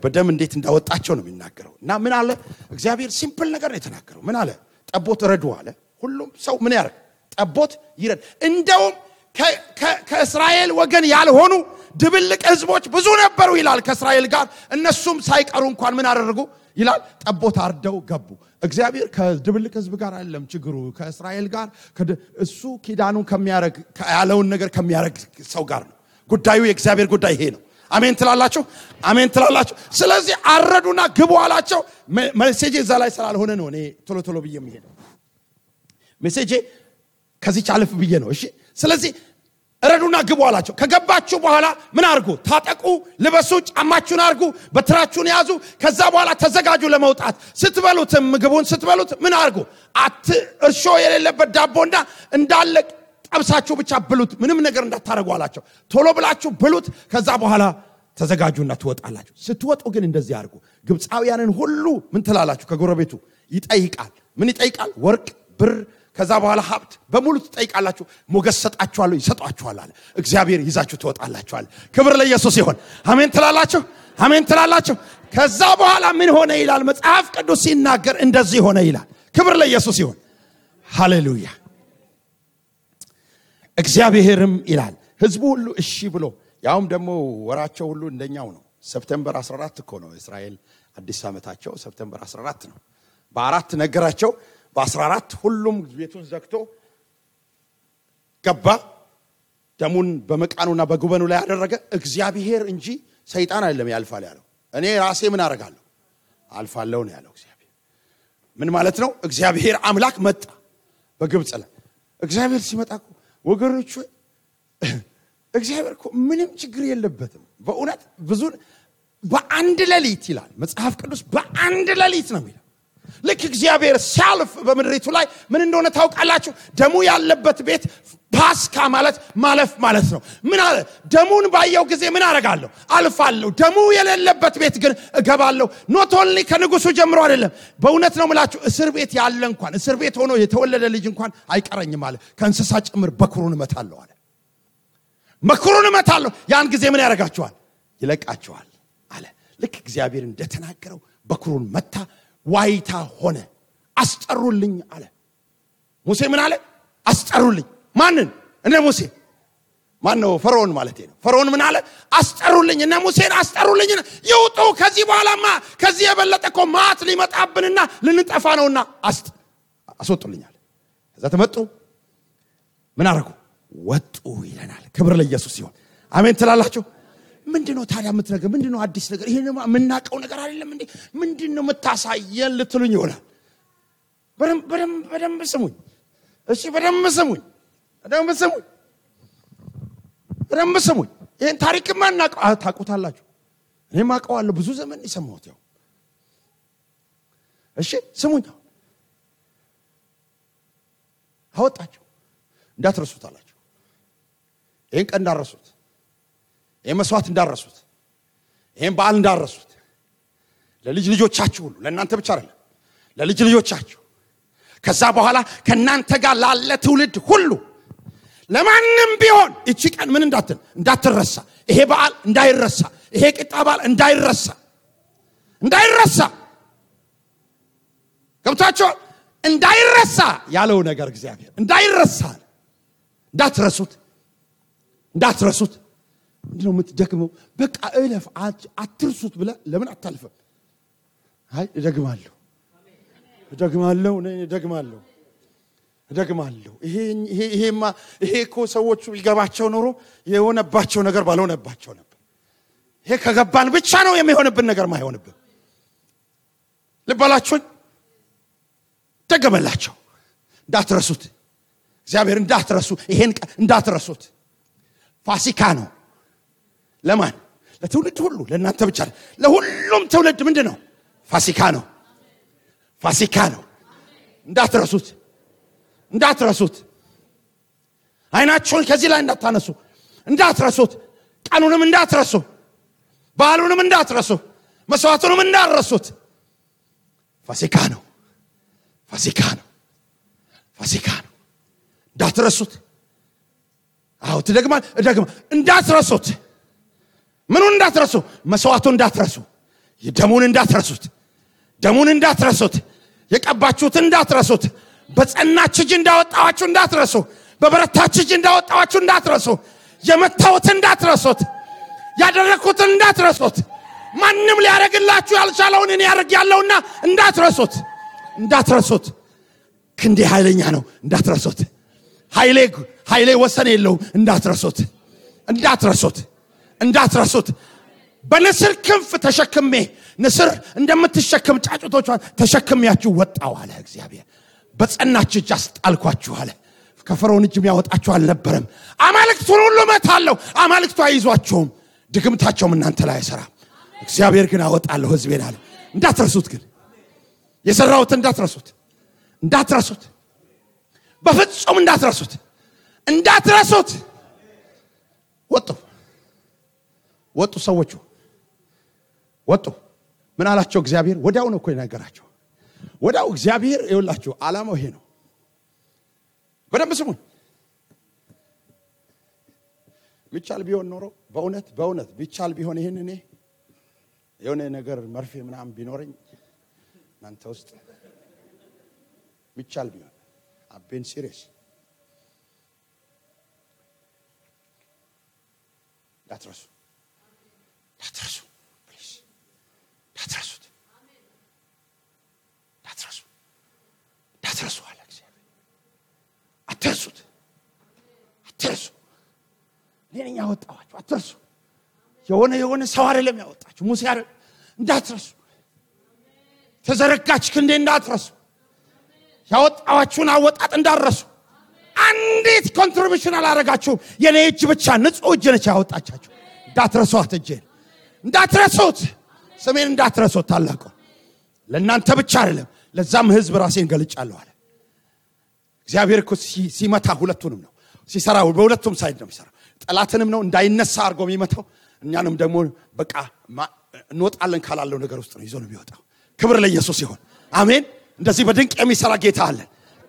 በደም እንዴት እንዳወጣቸው ነው የሚናገረው እና ምን አለ እግዚአብሔር ሲምፕል ነገር ነው የተናገረው ምን አለ ጠቦት ረዱ አለ ሁሉም ሰው ምን ያርግ ጠቦት ይረድ እንደውም ከእስራኤል ወገን ያልሆኑ ድብልቅ ህዝቦች ብዙ ነበሩ ይላል ከእስራኤል ጋር እነሱም ሳይቀሩ እንኳን ምን አደረጉ ይላል ጠቦት አርደው ገቡ እግዚአብሔር ከድብልቅ ህዝብ ጋር አይደለም ችግሩ ከእስራኤል ጋር እሱ ኪዳኑን ከሚያረግ ያለውን ነገር ከሚያረግ ሰው ጋር ነው ጉዳዩ የእግዚአብሔር ጉዳይ ይሄ ነው አሜን ትላላችሁ ስለዚህ አረዱና ግቡ አላቸው ሜሴጅ እዛ ላይ ስላልሆነ ነው እኔ ቶሎ ብዬ የምሄደው ሜሴጅ ከዚህ ቻለፍ ብዬ ነው እሺ ስለዚህ ረዱና ግቡ አላቸው ከገባችሁ በኋላ ምን አርጉ ታጠቁ ልበሱ ጫማችሁን አርጉ በትራችሁን ያዙ ከዛ በኋላ ተዘጋጁ ለመውጣት ስትበሉት ምግቡን ስትበሉት ምን አርጉ እርሾ የሌለበት ዳቦና እንዳለ ጠብሳችሁ ብቻ ብሉት ምንም ነገር እንዳታረጉ አላቸው ቶሎ ብላችሁ ብሉት ከዛ በኋላ ተዘጋጁና ትወጣላችሁ ስትወጡ ግን እንደዚህ አርጉ ግብጻውያንን ሁሉ ምን ትላላችሁ ከጎረቤቱ ይጠይቃል ምን ይጠይቃል ወርቅ ብር ከዛ በኋላ ሀብት በሙሉ ትጠይቃላችሁ ሞገስ ሰጣችኋለሁ ይሰጣችኋል አለ እግዚአብሔር ይዛችሁ ትወጣላችሁ አለ ክብር ለኢየሱስ ይሁን አሜን ትላላችሁ ከዛ በኋላ ምን ሆነ ይላል መጽሐፍ ቅዱስ ሲናገር እንደዚህ ሆነ ይላል ክብር ለኢየሱስ ይሁን ሃሌሉያ እግዚአብሔርም ይላል ህዝቡ ሁሉ እሺ ብሎ ያውም ደግሞ ወራቸው ሁሉ እንደኛው ነው። ሰፕቴምበር 14 እኮ ነው እስራኤል አዲስ ዓመታቸው ሰፕቴምበር 14 ነው። በ4 ነገራቸው በ14 ሁሉም ቤቱን ዘግቶ ገባ። ደሙን በመቃኑና በጉበኑ ላይ ያደረገ እግዚአብሔር እንጂ ሰይጣን አይደለም ያልፋል ያለው። እኔ ራሴ ምን አደርጋለሁ አልፋለሁ ነው ያለው እግዚአብሔር። ምን ማለት ነው? እግዚአብሔር አምላክ መጣ በግብጽ ላይ። እግዚአብሔር ሲመጣ ወገኖች እግዚአብሔር እኮ ምንም ችግር የለበትም። በእውነት ብዙ በአንድ ሌሊት ይላል መጽሐፍ ቅዱስ፣ በአንድ ሌሊት ነው የሚለው። ልክ እግዚአብሔር ሲያልፍ በመድሪቱ ላይ ምን እንደሆነ ታውቃላችሁ? ደሙ ያለበት ቤት ፓስካ ማለት ማለፍ ማለት ነው። ምን አለ? ደሙን ባየው ጊዜ ምን አረጋለሁ? አልፋለሁ። ደሙ የሌለበት ቤት ግን እገባለሁ። ኖት ኦንሊ ከንጉሱ ጀምሮ አይደለም። በእውነት ነው የምላችሁ፣ እስር ቤት ያለ እንኳን እስር ቤት ሆኖ የተወለደ ልጅ እንኳን አይቀረኝም አለ። ከእንስሳ ጭምር በኩሩን እመታለሁ አለ። በኩሩን እመታለሁ። ያን ጊዜ ምን ያደርጋቸዋል? ይለቃቸዋል አለ። ልክ እግዚአብሔር እንደተናገረው በኩሩን መታ። ዋይታ ሆነ። አስጠሩልኝ አለ። ሙሴ ምን አለ? አስጠሩልኝ። ማንን? እነ ሙሴ። ማን ነው? ፈርዖን ማለት ነው። ፈርዖን ምን አለ? አስጠሩልኝ። እነ ሙሴን አስጠሩልኝ። ይውጡ። ከዚህ በኋላማ ከዚህ የበለጠ እኮ ማት ሊመጣብንና ልንጠፋ ነውና አስወጡልኛል። ከዛ ተመጡ። ምን አረጉ? ወጡ ይለናል። ክብር ለኢየሱስ ይሁን። አሜን ትላላችሁ? ምንድነው ታዲያ የምትነገር? ምንድነው አዲስ ነገር? ይሄን የምናቀው ነገር አይደለም እንዴ? ምንድነው የምታሳየን ልትሉኝ ይሆናል። በደንብ ስሙኝ። እሺ በደንብ ስሙኝ። ይሄን ታሪክ ማናቀው ታውቁታላችሁ። እኔም አውቀዋለሁ። ብዙ ዘመን ይሰማሁት ያው። እሺ ስሙኝ። አወጣቸው። እንዳትረሱት አላችሁ። ይሄን ቀን እንዳትረሱት፣ ይሄን መስዋዕት እንዳትረሱት፣ ይሄን በዓል እንዳትረሱት። ለልጅ ልጆቻችሁ ሁሉ፣ ለእናንተ ብቻ አይደለም፣ ለልጅ ልጆቻችሁ ከዛ በኋላ ከናንተ ጋር ላለ ትውልድ ሁሉ ለማንም ቢሆን እቺ ቀን ምን እንዳትረሳ፣ ይሄ በዓል እንዳይረሳ፣ ይሄ ቂጣ በዓል እንዳይረሳ ገብታችሁ እንዳይረሳ ያለው ነገር እግዚአብሔር እንዳይረሳ፣ እንዳትረሱት። ምንድነው የምትደክመው? በቃ እለፍ አትርሱት ብለ ለምን አታልፈም? አይ እደግማለሁ። ይሄ እኮ ሰዎቹ ይገባቸው ኖሮ የሆነባቸው ነገር ባልሆነባቸው ነበር። ይሄ ከገባን ብቻ ነው የሚሆንብን ነገር ማይሆንብን። ልባላችሁን ደገመላቸው። እንዳትረሱት፣ እግዚአብሔር እንዳትረሱ፣ ይሄን እንዳትረሱት። ፋሲካ ነው። ለማን? ለትውልድ ሁሉ፣ ለእናንተ ብቻ ለሁሉም ትውልድ ምንድነው? ፋሲካ ነው። እንዳትረሱት። አይናችሁን ከዚህ ላይ እንዳታነሱ፣ እንዳትረሱት። ቀኑንም እንዳትረሱ፣ በዓሉንም እንዳትረሱ፣ መስዋዕቱንም እንዳትረሱት። ፋሲካ ነው። እንዳትረሱት። አዎ ትደግማል። እንዳትረሱት። ምኑን እንዳትረሱ? መስዋዕቱን እንዳትረሱ፣ ደሙን እንዳትረሱት፣ የቀባችሁትን እንዳትረሱት፣ በጸናች እጅ እንዳወጣዋችሁ እንዳትረሱ፣ በበረታች እጅ እንዳወጣዋችሁ እንዳትረሱ፣ የመታውትን እንዳትረሱት፣ ያደረኩትን እንዳትረሱት፣ ማንም ሊያረግላችሁ ያልቻለውን እኔ ያረጋለሁና እንዳትረሱት። ክንዴ ኃይለኛ ነው፣ እንዳትረሱት። ኃይሌ ወሰን የለውም፣ እንዳትረሱት። በንስር ክንፍ ተሸክሜ፣ ንስር እንደምትሸከም ጫጩቶቿን ተሸክሜያችሁ ወጣው አለ እግዚአብሔር። በጸናች እጅ አስጣልኳችሁ አለ። ከፈርዖን እጅ የሚያወጣችሁ አልነበረም። አማልክቱን ሁሉ መታለሁ፣ አማልክቱ አይዟቸውም፣ ድግምታቸውም እናንተ ላይ አይሰራም። እግዚአብሔር ግን አወጣለሁ ሕዝቤን አለ። እንዳትረሱት፣ ግን የሰራሁትን እንዳትረሱት፣ በፍጹም እንዳትረሱት። ወጡ ሰዎቹ ወጡ። ምን አላቸው እግዚአብሔር? ወዲያው ነው እኮ የነገራቸው። ወዲያው እግዚአብሔር ይኸውላችሁ ዓላማው ይሄ ነው። በደንብ ስሙኝ። ሚቻል ቢሆን ኖሮ በእውነት ቢቻል ቢሆን ይሄን እኔ የሆነ ነገር መርፌ ምናምን ቢኖርኝ እናንተ ውስጥ ሚቻል ቢሆን አቤን ሲሪየስ እንዳትረሱ ፕሊዝ እንዳትረሱት አለ እግዚአብሔር። አትርሱት እኔ ያወጣኋችሁ አትርሱ። የሆነ ሰው አይደለም ያወጣችሁ ሙሴ አይደለም። እንዳትረሱ ተዘረጋች ክንዴ እንዳትረሱ ያወጣኋችሁን አወጣጥ እንዳትረሱ። አንዲት ኮንትሪቢዩሽን አላረጋችሁም። የኔ እጅ ብቻ ንጹህ እጅ ነች ያወጣቻችሁ። እንዳትረሱት እጄን እንዳትረሱት ስሜን እንዳትረሱት ታላቁ ለእናንተ ብቻ አይደለም ለዛም ህዝብ ራሴን ገልጫለሁ አለ እግዚአብሔር። እኮ ሲመታ ሁለቱንም ነው ሲሰራው በሁለቱም ሳይድ ነው የሚሰራው። ጠላትንም ነው እንዳይነሳ አርጎ የሚመታው እኛንም ደግሞ በቃ እንወጣለን ካላለው ነገር ውስጥ ነው ይዞ ነው የሚወጣው። ክብር ለኢየሱስ ይሁን አሜን። እንደዚህ በድንቅ የሚሰራ ጌታ አለ።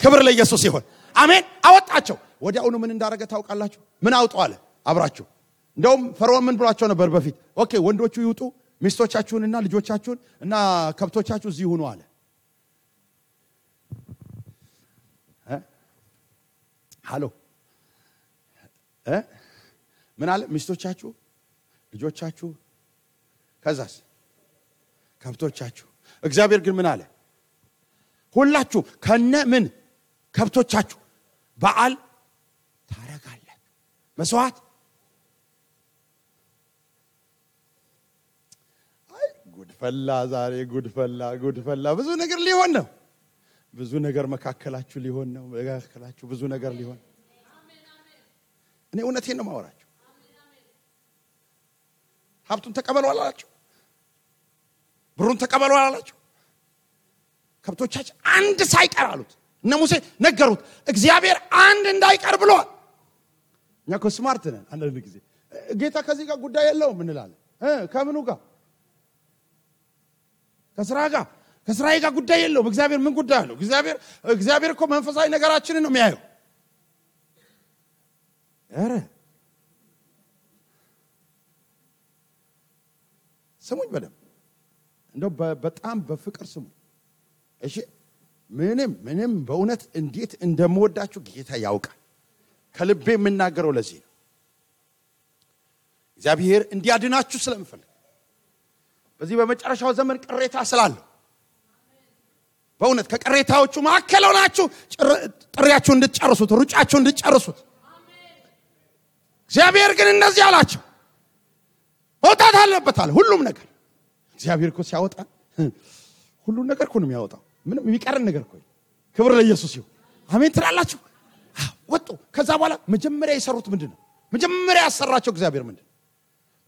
ክብር ለኢየሱስ ይሁን አሜን። አወጣቸው። ወዲያውኑ ምን እንዳረገ ታውቃላችሁ? ምን አውጣው አለ አብራችሁ። እንደውም ፈርዖን ምን ብሏቸው ነበር በፊት? ኦኬ ወንዶቹ ይውጡ ሚስቶቻችሁንና ልጆቻችሁን እና ከብቶቻችሁ እዚህ ሆኑ አለ። ሃሎ ምን አለ? ሚስቶቻችሁ ልጆቻችሁ ከዛስ ከብቶቻችሁ። እግዚአብሔር ግን ምን አለ? ሁላችሁ ከነ ምን ከብቶቻችሁ በዓል ታረጋለህ መስዋዕት። አይ ጉድፈላ ዛሬ ጉድፈላ ብዙ ነገር ሊሆን ነው። ብዙ ነገር መካከላችሁ ሊሆን ነው። መካከላችሁ ብዙ ነገር ሊሆን። እኔ እውነቴን ነው ማወራችሁ። ሀብቱን ተቀበሉ አላላችሁ? ብሩን ተቀበሉ አላላችሁ? ከብቶቻችሁ አንድ ሳይቀር አሉት። እነ ሙሴ ነገሩት። እግዚአብሔር አንድ እንዳይቀር ብሏል። እኛ እኮ ስማርት ነን። አንዳንድ ጊዜ ጌታ ከዚህ ጋር ጉዳይ የለውም እንላለን። ከምኑ ጋር? ከስራዬ ጋር ጉዳይ የለውም። እግዚአብሔር ምን ጉዳይ አለው? እግዚአብሔር እኮ መንፈሳዊ ነገራችንን ነው የሚያየው። አረ ስሙኝ በደም እንደው በጣም በፍቅር ስሙኝ እሺ። ምንም በእውነት እንዴት እንደምወዳችሁ ጌታ ያውቃል። ከልቤ የምናገረው ለዚህ ነው። እግዚአብሔር እንዲያድናችሁ ስለምፈልግ በዚህ በመጨረሻው ዘመን ቅሬታ ስላለው በእውነት ከቅሬታዎቹ መካከል ሆናችሁ ጥሪያችሁን እንድትጨርሱት ሩጫችሁን እንድትጨርሱት እግዚአብሔር ግን እንደዚህ አላችሁ። መውጣት አለበታል ሁሉም ነገር። እግዚአብሔር እኮ ሲያወጣ ሁሉም ነገር እኮ ነው የሚያወጣው። ምንም የሚቀርን ነገር እኮ። ክብር ለኢየሱስ ይሁን አሜን ትላላችሁ። ወጡ። ከዛ በኋላ መጀመሪያ የሰሩት ምንድነው? መጀመሪያ ያሰራቸው እግዚአብሔር ምንድነው?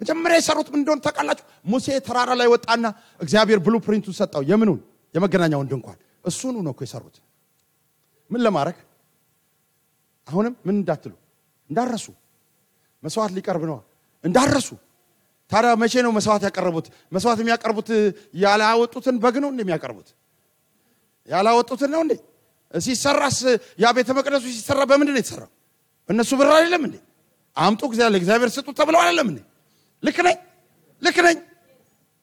መጀመሪያ የሰሩት ምን እንደሆነ ታውቃላችሁ? ሙሴ ተራራ ላይ ወጣና እግዚአብሔር ብሉፕሪንቱን ሰጣው። የምኑን? የመገናኛውን ድንኳን። እሱን ነው እኮ የሰሩት። ምን ለማድረግ? አሁንም ምን እንዳትሉ እንዳረሱ መስዋዕት ሊቀርብ ነው እንዳረሱ። ታዲያ መቼ ነው መስዋዕት ያቀርቡት? መስዋዕት የሚያቀርቡት ያላወጡትን በግ ነው እንደሚያቀርቡት? ያላወጡትን ነው እንዴ? ሲሰራስ ያ ቤተ መቅደሱ ሲሰራ በምንድን ነው የተሰራው? እነሱ ብር አይደለም እንዴ? አምጡ እግዚአብሔር ስጡ ተብለው አይደለም እንዴ? ልክ ነኝ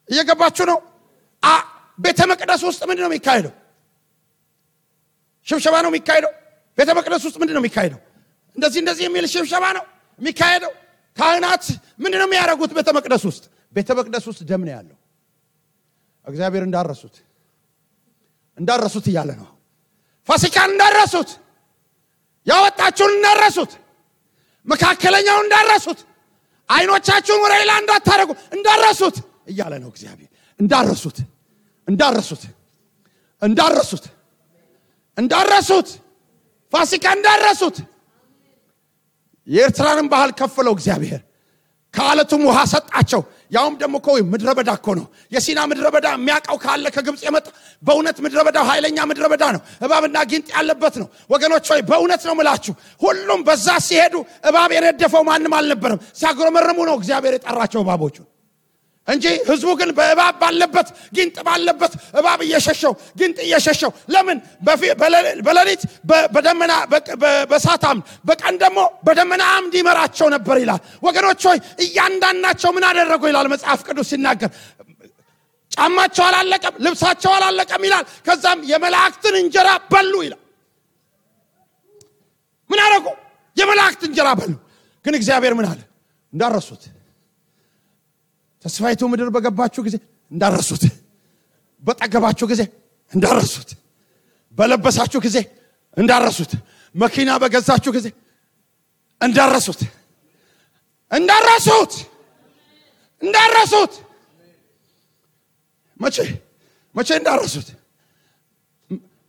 እየገባችሁ ነው? ቤተ መቅደስ ውስጥ ምንድን ነው የሚካሄደው? ሽብሸባ ነው የሚካሄደው። ቤተ መቅደስ ውስጥ ምንድን ነው የሚካሄደው? እንደዚህ የሚል ሽብሸባ ነው የሚካሄደው። ካህናት ምንድን ነው የሚያደርጉት? ቤተ መቅደስ ውስጥ ደም ነው ያለው። እግዚአብሔር እንዳረሱት እያለ ነው። ፋሲካን እንዳረሱት፣ ያወጣችሁን እንዳረሱት፣ መካከለኛውን እንዳረሱት፣ አይኖቻችሁን ወደ ሌላ እንዳታረጉ እንዳረሱት እያለ ነው እግዚአብሔር። እንዳረሱት ፋሲካ እንዳረሱት። የኤርትራንን ባህል ከፈለው እግዚአብሔር። ከአለቱም ውሃ ሰጣቸው። ያውም ደግሞ እኮ ምድረ በዳ እኮ ነው። የሲና ምድረ በዳ የሚያውቀው ካለ ከግብጽ የመጣ በእውነት ምድረ በዳው ኃይለኛ ምድረ በዳ ነው። እባብና ጊንጥ ያለበት ነው ወገኖች ሆይ፣ በእውነት ነው የምላችሁ። ሁሉም በዛ ሲሄዱ እባብ የነደፈው ማንም አልነበረም። ሲያጉረመርሙ ነው እግዚአብሔር የጠራቸው እባቦቹ እንጂ ህዝቡ ግን በእባብ ባለበት ጊንጥ ባለበት እባብ እየሸሸው ጊንጥ እየሸሸው ለምን? በሌሊት በደመና በሳታም በቀን ደግሞ በደመና አምድ ይመራቸው ነበር ይላል። ወገኖች ሆይ እያንዳንዳቸው ምን አደረጉ ይላል መጽሐፍ ቅዱስ ሲናገር። ጫማቸው አላለቀም፣ ልብሳቸው አላለቀም ይላል። ከዛም የመላእክትን እንጀራ በሉ ይላል። ምን አደረጉ? የመላእክት እንጀራ በሉ። ግን እግዚአብሔር ምን አለ? እንዳረሱት ተስፋይቱ ምድር በገባችሁ ጊዜ እንዳረሱት በጠገባችሁ ጊዜ እንዳረሱት በለበሳችሁ ጊዜ እንዳረሱት መኪና በገዛችሁ ጊዜ እንዳረሱት መቼ እንዳረሱት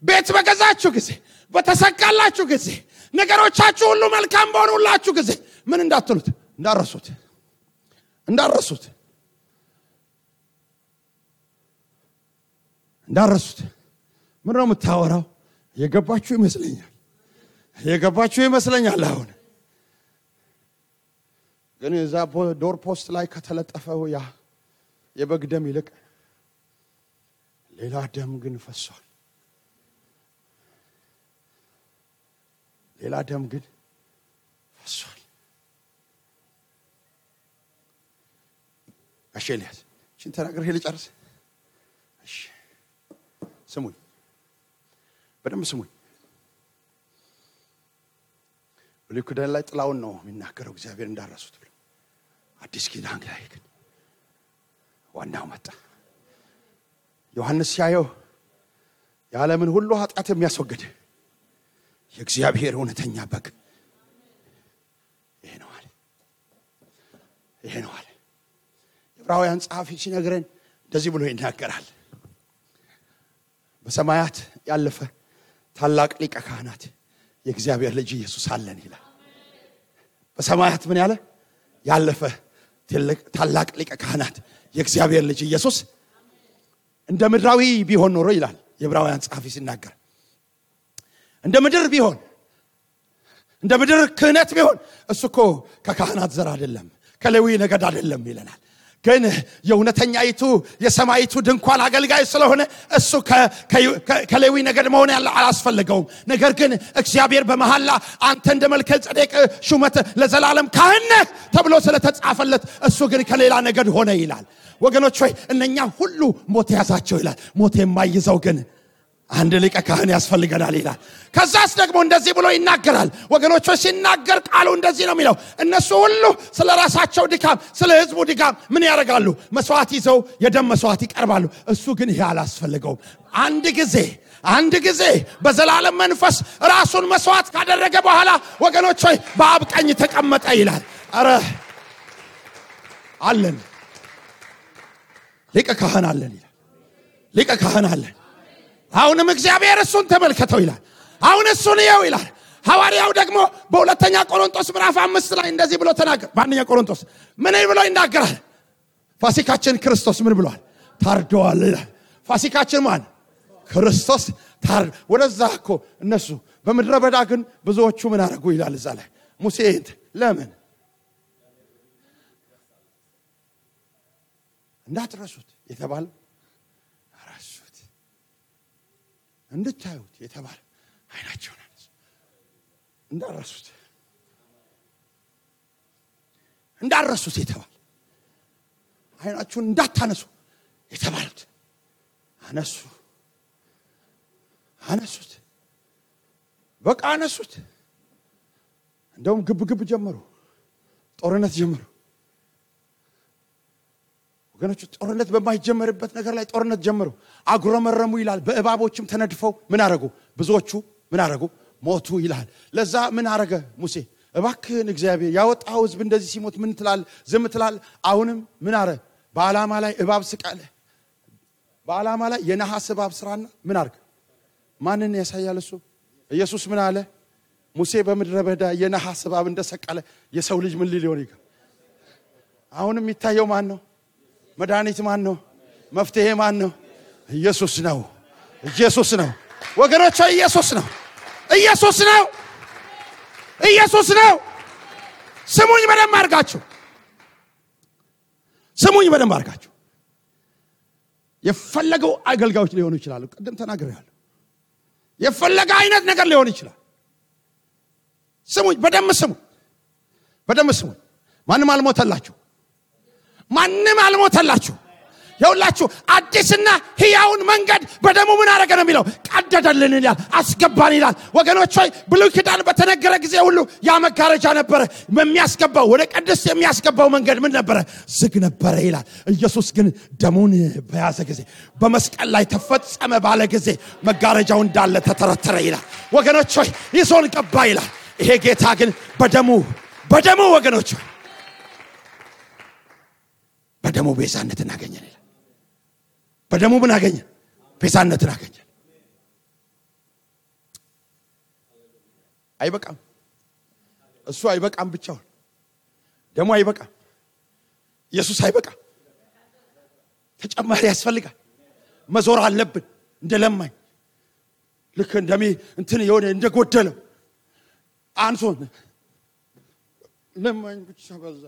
ቤት በገዛችሁ ጊዜ በተሰካላችሁ ጊዜ ነገሮቻችሁ ሁሉ መልካም በሆኑላችሁ ጊዜ ምን እንዳትሉት እንዳረሱት ምን ነው የምታወራው? የገባችሁ ይመስለኛል አሁን ግን እዛ ዶር ፖስት ላይ ከተለጠፈው ያ የበግ ደም ይልቅ ሌላ ደም ግን ፈሷል። አሸሊያስ ሽን ተናገር ሄለ ጨርስ። እሺ ስሙኝ፣ በደንብ ስሙኝ። ብሉይ ኪዳን ላይ ጥላውን ነው የሚናገረው እግዚአብሔር እንዳረሱት ብሎ። አዲስ ኪዳን ላይ ግን ዋናው መጣ። ዮሐንስ ሲያየው የዓለምን ሁሉ ኃጢአት የሚያስወግድ የእግዚአብሔር እውነተኛ በግ ይሄ ነው አለ። ዕብራውያን ጸሐፊ ሲነግረን እንደዚህ ብሎ ይናገራል። በሰማያት ያለፈ ታላቅ ሊቀ ካህናት የእግዚአብሔር ልጅ ኢየሱስ አለን ይላል። በሰማያት ምን ያለፈ ታላቅ ሊቀ ካህናት የእግዚአብሔር ልጅ ኢየሱስ እንደ ምድራዊ ቢሆን ኖሮ ይላል የዕብራውያን ጸሐፊ ሲናገር፣ እንደ ምድር ክህነት ቢሆን እሱኮ ከካህናት ዘር አይደለም ከሌዊ ነገድ አይደለም ይለናል። ግን የእውነተኛይቱ የሰማይቱ ድንኳን አገልጋይ ስለሆነ እሱ ከሌዊ ነገድ መሆን አላስፈልገውም። ነገር ግን እግዚአብሔር በመሐላ አንተ እንደ መልከጼዴቅ ሹመት ለዘላለም ካህን ተብሎ ስለተጻፈለት እሱ ግን ከሌላ ነገድ ሆነ ይላል። ወገኖች ሆይ እነኛ ሁሉ ሞት ያዛቸው ይላል። ሞት የማይዘው ግን አንድ ሊቀ ካህን ያስፈልገናል ይላል። ከዛስ ደግሞ እንደዚህ ብሎ ይናገራል። ወገኖች ሆይ ሲናገር ቃሉ እንደዚህ ነው የሚለው፣ እነሱ ሁሉ ስለ ራሳቸው ድካም ስለ ህዝቡ ድካም ምን ያደርጋሉ? መስዋዕት ይዘው የደም መስዋዕት ይቀርባሉ። እሱ ግን ይሄ አላስፈልገውም። አንድ ጊዜ በዘላለም መንፈስ ራሱን መስዋዕት ካደረገ በኋላ ወገኖች ሆይ በአብ ቀኝ ተቀመጠ ይላል። አረ አለን ሊቀ ካህን አለን ይላል። ሊቀ ካህን አለን። አሁንም እግዚአብሔር እሱን ተመልከተው ይላል። አሁን እሱን ይየው ይላል። ሐዋርያው ደግሞ በሁለተኛ ቆሮንቶስ ምዕራፍ 5 ላይ እንደዚህ ብሎ ተናገረ። በአንደኛ ቆሮንቶስ ምን ብሎ ይናገራል? ፋሲካችን ክርስቶስ ምን ብሏል? ታርዷል ይላል። ፋሲካችን ማን? ክርስቶስ ታርድ። ወደዛ እኮ እነሱ በምድረ በዳ ግን ብዙዎቹ ምን አደረጉ ይላል እዛ ላይ ሙሴ ለምን እንዳትረሱት የተባለው አራሱት እንድታዩት የተባለ አይናቸውን እንዳረሱት የተባለ አይናቸውን እንዳታነሱ የተባሉት አነሱት። በቃ አነሱት። እንደውም ግብ ጀመሩ፣ ጦርነት ጀመሩ። ወገኖች ጦርነት በማይጀመርበት ነገር ላይ ጦርነት ጀመሩ። አጉረመረሙ ይላል። በእባቦችም ተነድፈው ምን አረጉ? ብዙዎቹ ምን አረጉ? ሞቱ ይላል። ለዛ ምን አረገ ሙሴ? እባክህን እግዚአብሔር ያወጣው ህዝብ እንደዚህ ሲሞት ምን ትላል? ዝም ትላል? አሁንም ምን አረ? በዓላማ ላይ እባብ ስቃለ። በዓላማ ላይ የነሐስ እባብ ስራና ምን አርግ? ማንን ያሳያል እሱ? ኢየሱስ ምን አለ? ሙሴ በምድረ በዳ የነሐስ እባብ እንደሰቀለ የሰው ልጅ ምን ሊሆን ይገባል? አሁንም የሚታየው ማን ነው? መድኃኒት ማን ነው? መፍትሄ ማን ነው? ኢየሱስ ነው። ወገኖች ኢየሱስ ነው። ስሙኝ በደንብ አድርጋችሁ የፈለገው አገልጋዮች ሊሆኑ ይችላሉ። ቀደም ተናግሬያለሁ። የፈለገ አይነት ነገር ሊሆን ይችላል። ስሙኝ በደንብ ስሙኝ። ማንም አልሞተላችሁ። ይውላችሁ አዲስና ሕያውን መንገድ በደሙ ምን አረገ ነው የሚለው ቀደደልን ይላል አስገባን ይላል ወገኖች ሆይ ብሉይ ኪዳን በተነገረ ጊዜ ሁሉ ያ መጋረጃ ነበር የሚያስገባው ወደ ቅድስት የሚያስገባው መንገድ ምን ነበር ዝግ ነበር ይላል ኢየሱስ ግን ደሙን በያዘ ጊዜ በመስቀል ላይ ተፈጸመ ባለ ጊዜ መጋረጃው እንዳለ ተተረተረ ይላል ወገኖች ሆይ ይዞን ገባ ይላል ይሄ ጌታ ግን በደሙ ወገኖች በደሙ ቤዛነትን አገኘን ይላል በደሙ ምን አገኘ ቤዛነትን አገኘ አይበቃም እሱ አይበቃም ብቻውን ደሙ አይበቃም ኢየሱስ አይበቃም ተጨማሪ ያስፈልጋል መዞር አለብን እንደለማኝ ልክ እንደሚ እንትን የሆነ እንደጎደለው አንሶን ለማኝ ብቻ በዛ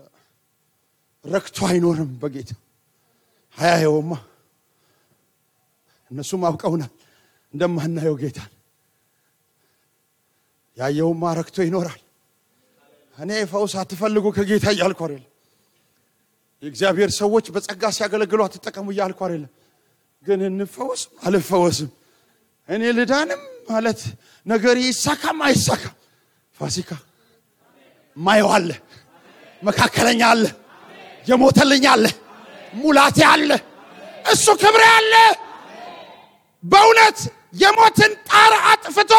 ረክቶ አይኖርም በጌታ ሃያየውማ እነሱም አውቀውናል እንደማናየው ጌታ ያየውማ ረክቶ ይኖራል እኔ ፈውስ አትፈልጉ ከጌታ ይያልኩ አይደል የእግዚአብሔር ሰዎች በጸጋ ሲያገለግሉ አትጠቀሙ ይያልኩ አይደል ግን እንፈውስ አልፈወስም እኔ ልዳንም ማለት ነገር ይሳካም አይሳካም ፋሲካ ማይዋለ መካከለኛ አለ የሞተልኝ አለ ሙላቴ አለ እሱ ክብሬ አለ በእውነት የሞትን ጣር አጥፍቶ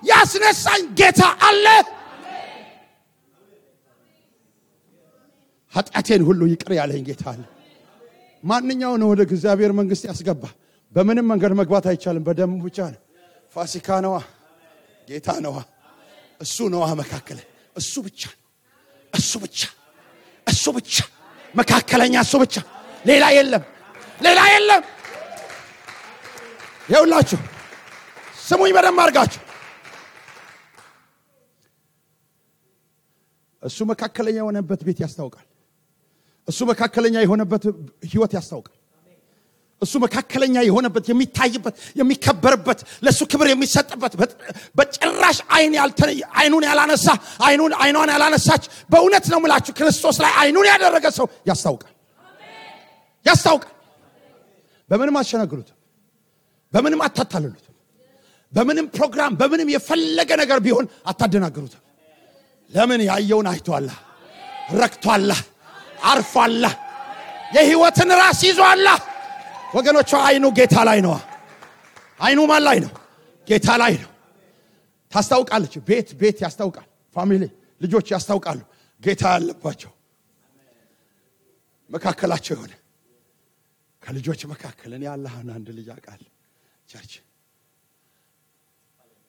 ያስነሳኝ ጌታ አለ ኃጢአቴን ሁሉ ይቅር ያለኝ ጌታ አለ ማንኛው ነው ወደ እግዚአብሔር መንግስት ያስገባ በምንም መንገድ መግባት አይቻልም በደሙ ብቻ ነው ፋሲካ ነው ጌታ ነው እሱ ነው መካከለ እሱ ብቻ መካከለኛ እሱ ብቻ ሌላ የለም ይውላችሁ ስሙኝ በደም አርጋችሁ እሱ መካከለኛ የሆነበት ቤት ያስታውቃል እሱ መካከለኛ የሆነበት ህይወት ያስታውቃል እሱ መካከለኛ የሆነበት የሚታይበት የሚከበርበት ለሱ ክብር የሚሰጥበት በጭራሽ አይኑን ያላነሳች በእውነት ነው ምላችሁ ክርስቶስ ላይ አይኑን ያደረገ ሰው ያስታውቃል በምንም አሸነግሩት በምንም አታታልሉት በምንም ፕሮግራም በምንም የፈለገ ነገር ቢሆን አታደናግሩት ለምን ያየውን አይቷል ረክቷል አርፏል የህይወትን ራስ ይዟል ወገኖች አይኑ ጌታ ላይ ነው አይኑ ማን ላይ ነው ጌታ ላይ ነው ታስታውቃለች ቤት ያስታውቃል ፋሚሊ ልጆች ያስታውቃሉ ጌታ ያለባቸው መካከላቸው የሆነ ከልጆች መካከል እኔ አላህን አንድ ልጅ አቃል ቸርች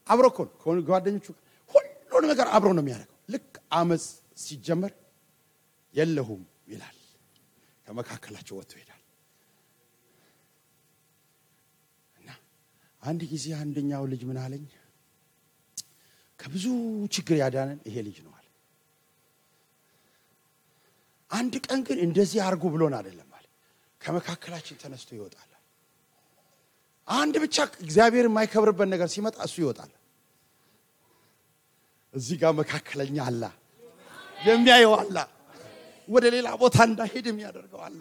አብሮኮን ጓደኞቹ ሁሉ ነገር አብሮ ነው የሚያደርገው ልክ አመጽ ሲጀመር የለሁም ይላል ከመካከላቸው ወጥቶ ይላል እና አንድ ጊዜ አንደኛው ልጅ ምን አለኝ ከብዙ ችግር ያዳነን ይሄ ልጅ ነው አለ አንድ ቀን ግን እንደዚህ አርጉ ብሎን አይደለም አለ ከመካከላችን ተነስቶ ይወጣል አንድ ብቻ እግዚአብሔር የማይከብርበት ነገር ሲመጣ እሱ ይወጣል እዚህ ጋር መካከለኛ አለ የሚያየው አለ ወደ ሌላ ቦታ እንዳይሄድ የሚያደርገው አለ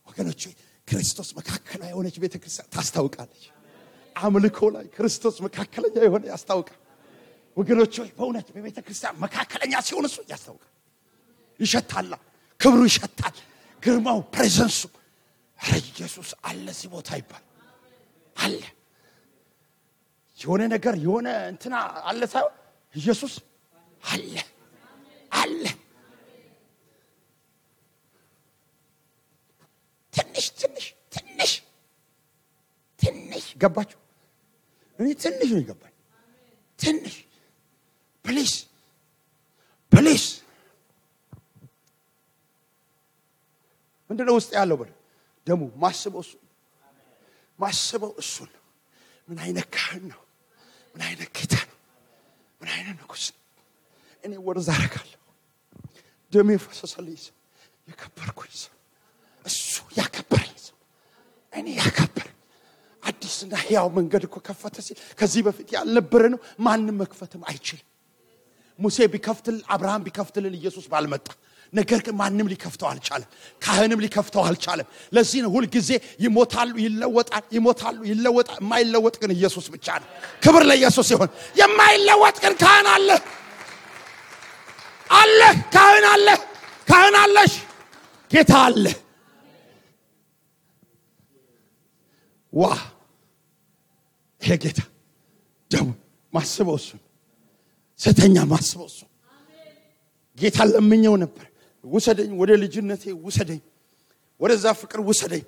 ወገኖች ክርስቶስ መካከለኛ የሆነች ቤተክርስቲያን ታስታውቃለች አምልኮ ላይ ክርስቶስ መካከለኛ የሆነ ያስታውቃል ወገኖች በእውነት በቤተክርስቲያን መካከለኛ ሲሆን እሱ ያስታውቃል ይሸታል ክብሩ ይሸታል ግርማው ፕሬዘንሱ ኢየሱስ አለ እዚህ ቦታ ይባል አለ የሆነ ነገር የሆነ እንትና አለ ሳይሆን ኢየሱስ አለ ትንሽ ገባችሁ እኔ ትንሽ ነው ይገባኝ ትንሽ ፕሊስ ምንድነው ውስጥ ያለው በል ደሙ ማስበው እሱ ነው ምን አይነት ካህን ነው ምን አይነት ጌታ ነው ምን አይነት ንጉስ እኔ ወርዛ አረጋለሁ ደሜ ፈሰሰልኝ የከበርኩኝ እሱ ያከበረኝ እኔ ያከበር አዲስና ሕያው መንገድ እኮ ከፈተ ሲል ከዚህ በፊት ያልነበረ ነው ማንንም መክፈትም አይችልም ሙሴ ቢከፍትል አብርሃም ቢከፍትልን ኢየሱስ ባልመጣ ነገር ግን ማንንም ሊከፍተው አልቻለም ካህንም ሊከፍተው አልቻለም ለዚህ ነው ሁሉ ጊዜ ይሞታሉ ይለወጣል ይሞታሉ ይለወጣል የማይለወጥ ግን ኢየሱስ ብቻ ነው ክብር ለኢየሱስ ይሁን የማይለወጥ ግን ካህን አለ ካህን አለሽ ጌታ አለ ዋ ይሄ ጌታ ደም ማስበው እሱ ስተኛ ማስበው እሱ ጌታ ለምኘው ነበር ወሰደኝ ወደ ልጅነቴ ወሰደኝ ወደዛ ፍቅር ወሰደኝ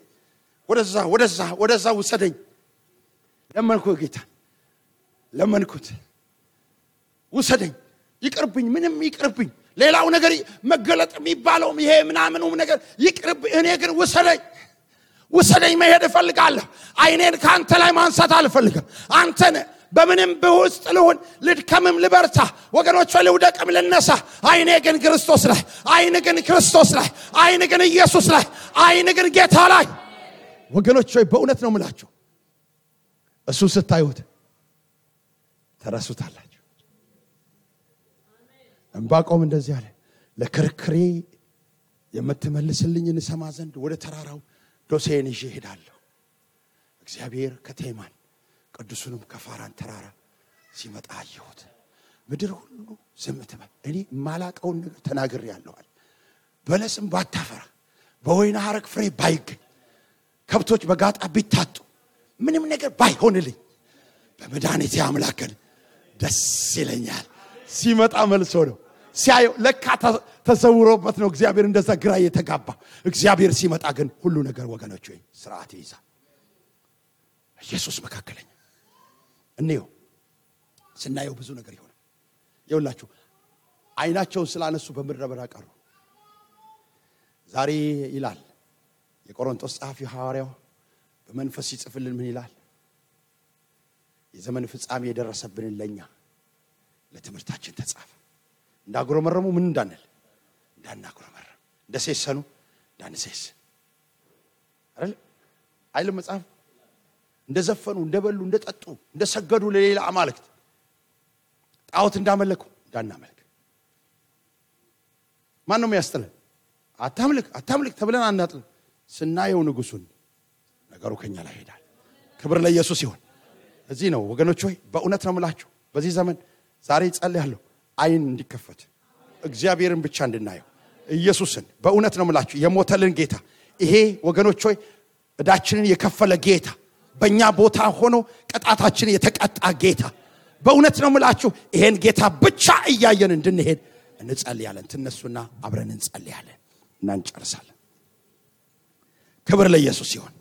ወደዛ ወሰደኝ ለመንኩት ወሰደኝ ይቅርብኝ ምንም ይቅርብኝ ሌላው ነገር መገለጥ የሚባለው ይሄ ምናምኑም ነገር ይቅርብ እኔ ግን ወሰደኝ መሄድ እፈልጋለሁ አይኔን ካንተ ላይ ማንሳት አልፈልግም አንተን በምንም በውስጥ ልሁን ልድከምም ልበርታ ወገኖች ልውደቅም ልነሳ አይኔ ግን ክርስቶስ ላይ አይኔ ግን ኢየሱስ ላይ አይኔ ግን ጌታ ላይ ወገኖች በእውነት ነው የምላችሁ እሱ ስታዩት ተራሱታላችሁ እንባቆም እንደዚህ አለ ለክርክሬ የምትመልስልኝን ሰማ ዘንድ ወደ ተራራው ዶሴን ይዤ ሄዳለሁ እግዚአብሔር ከቴማን ቅዱሱንም ከፋራን ተራራ ሲመጣ አየሁት ምድር ሁሉ ዝም ተባለ እኔ ማላቀውን ነገር ተናግሬያለሁ በለስም ባታፈራ በወይና ሐረግ ፍሬ ባይገኝ ከብቶች በጋጣ ቢታጡ ምንም ነገር ባይሆንልኝ በመድኃኒቴ አምላክን ደስ ይለኛል ሲመጣ መልሶ ነው ሲያየው ለካ ተሰውሮበት ነው እግዚአብሔር እንደዛ ግራ የተጋባ እግዚአብሔር ሲመጣ ግን ሁሉ ነገር ወገኖች ሆይ ስርዓት ይይዛል ኢየሱስ መካከለኛ እንየው ስናየው ብዙ ነገር ይሆናል ይውላችሁ አይናቸውን ስላነሱ በምድረ በዳ ቀሩ ዛሬ ይላል የቆሮንቶስ ጸሐፊ ሐዋርያው በመንፈስ ይጽፍልን ምን ይላል የዘመን ፍጻሜ የደረሰብን ለኛ ለትምህርታችን ተጻፈ እንዳጉረመረሙ ምን እንዳናጉረመረም እንደሰሰኑ እንዳንሰስ አይደል አይል መጽሐፍ እንደዘፈኑ እንደበሉ እንደጠጡ እንደሰገዱ ለሌላ አማልክት ጣዖት እንዳመለኩ እንዳናመልክ ማን ነው የሚያስተለን አታምልክ ተብለን አናጥል ስናየው ንጉሱን ነገሩ ከኛ ላይ ሄዳል ክብር ለኢየሱስ ይሁን እዚህ ነው ወገኖች ሆይ በእውነት ነው የምላችሁ በዚህ ዘመን ዛሬ ጸልያለሁ አይን እንዲከፈት እግዚአብሔርን ብቻ እንድናየው ኢየሱስን በእውነት ነው የምላችሁ የሞተልን ጌታ ይሄ ወገኖች ሆይ እዳችንን የከፈለ ጌታ በእኛ ቦታ ሆኖ ቅጣታችን የተቀጣ ጌታ በእውነት ነው የምላችሁ ይሄን ጌታ ብቻ እያየን እንድንሄድ እንጸልያለን ተነሱና አብረን እንጸልያለን እና እንጨርሳለን ክብር ለኢየሱስ ይሁን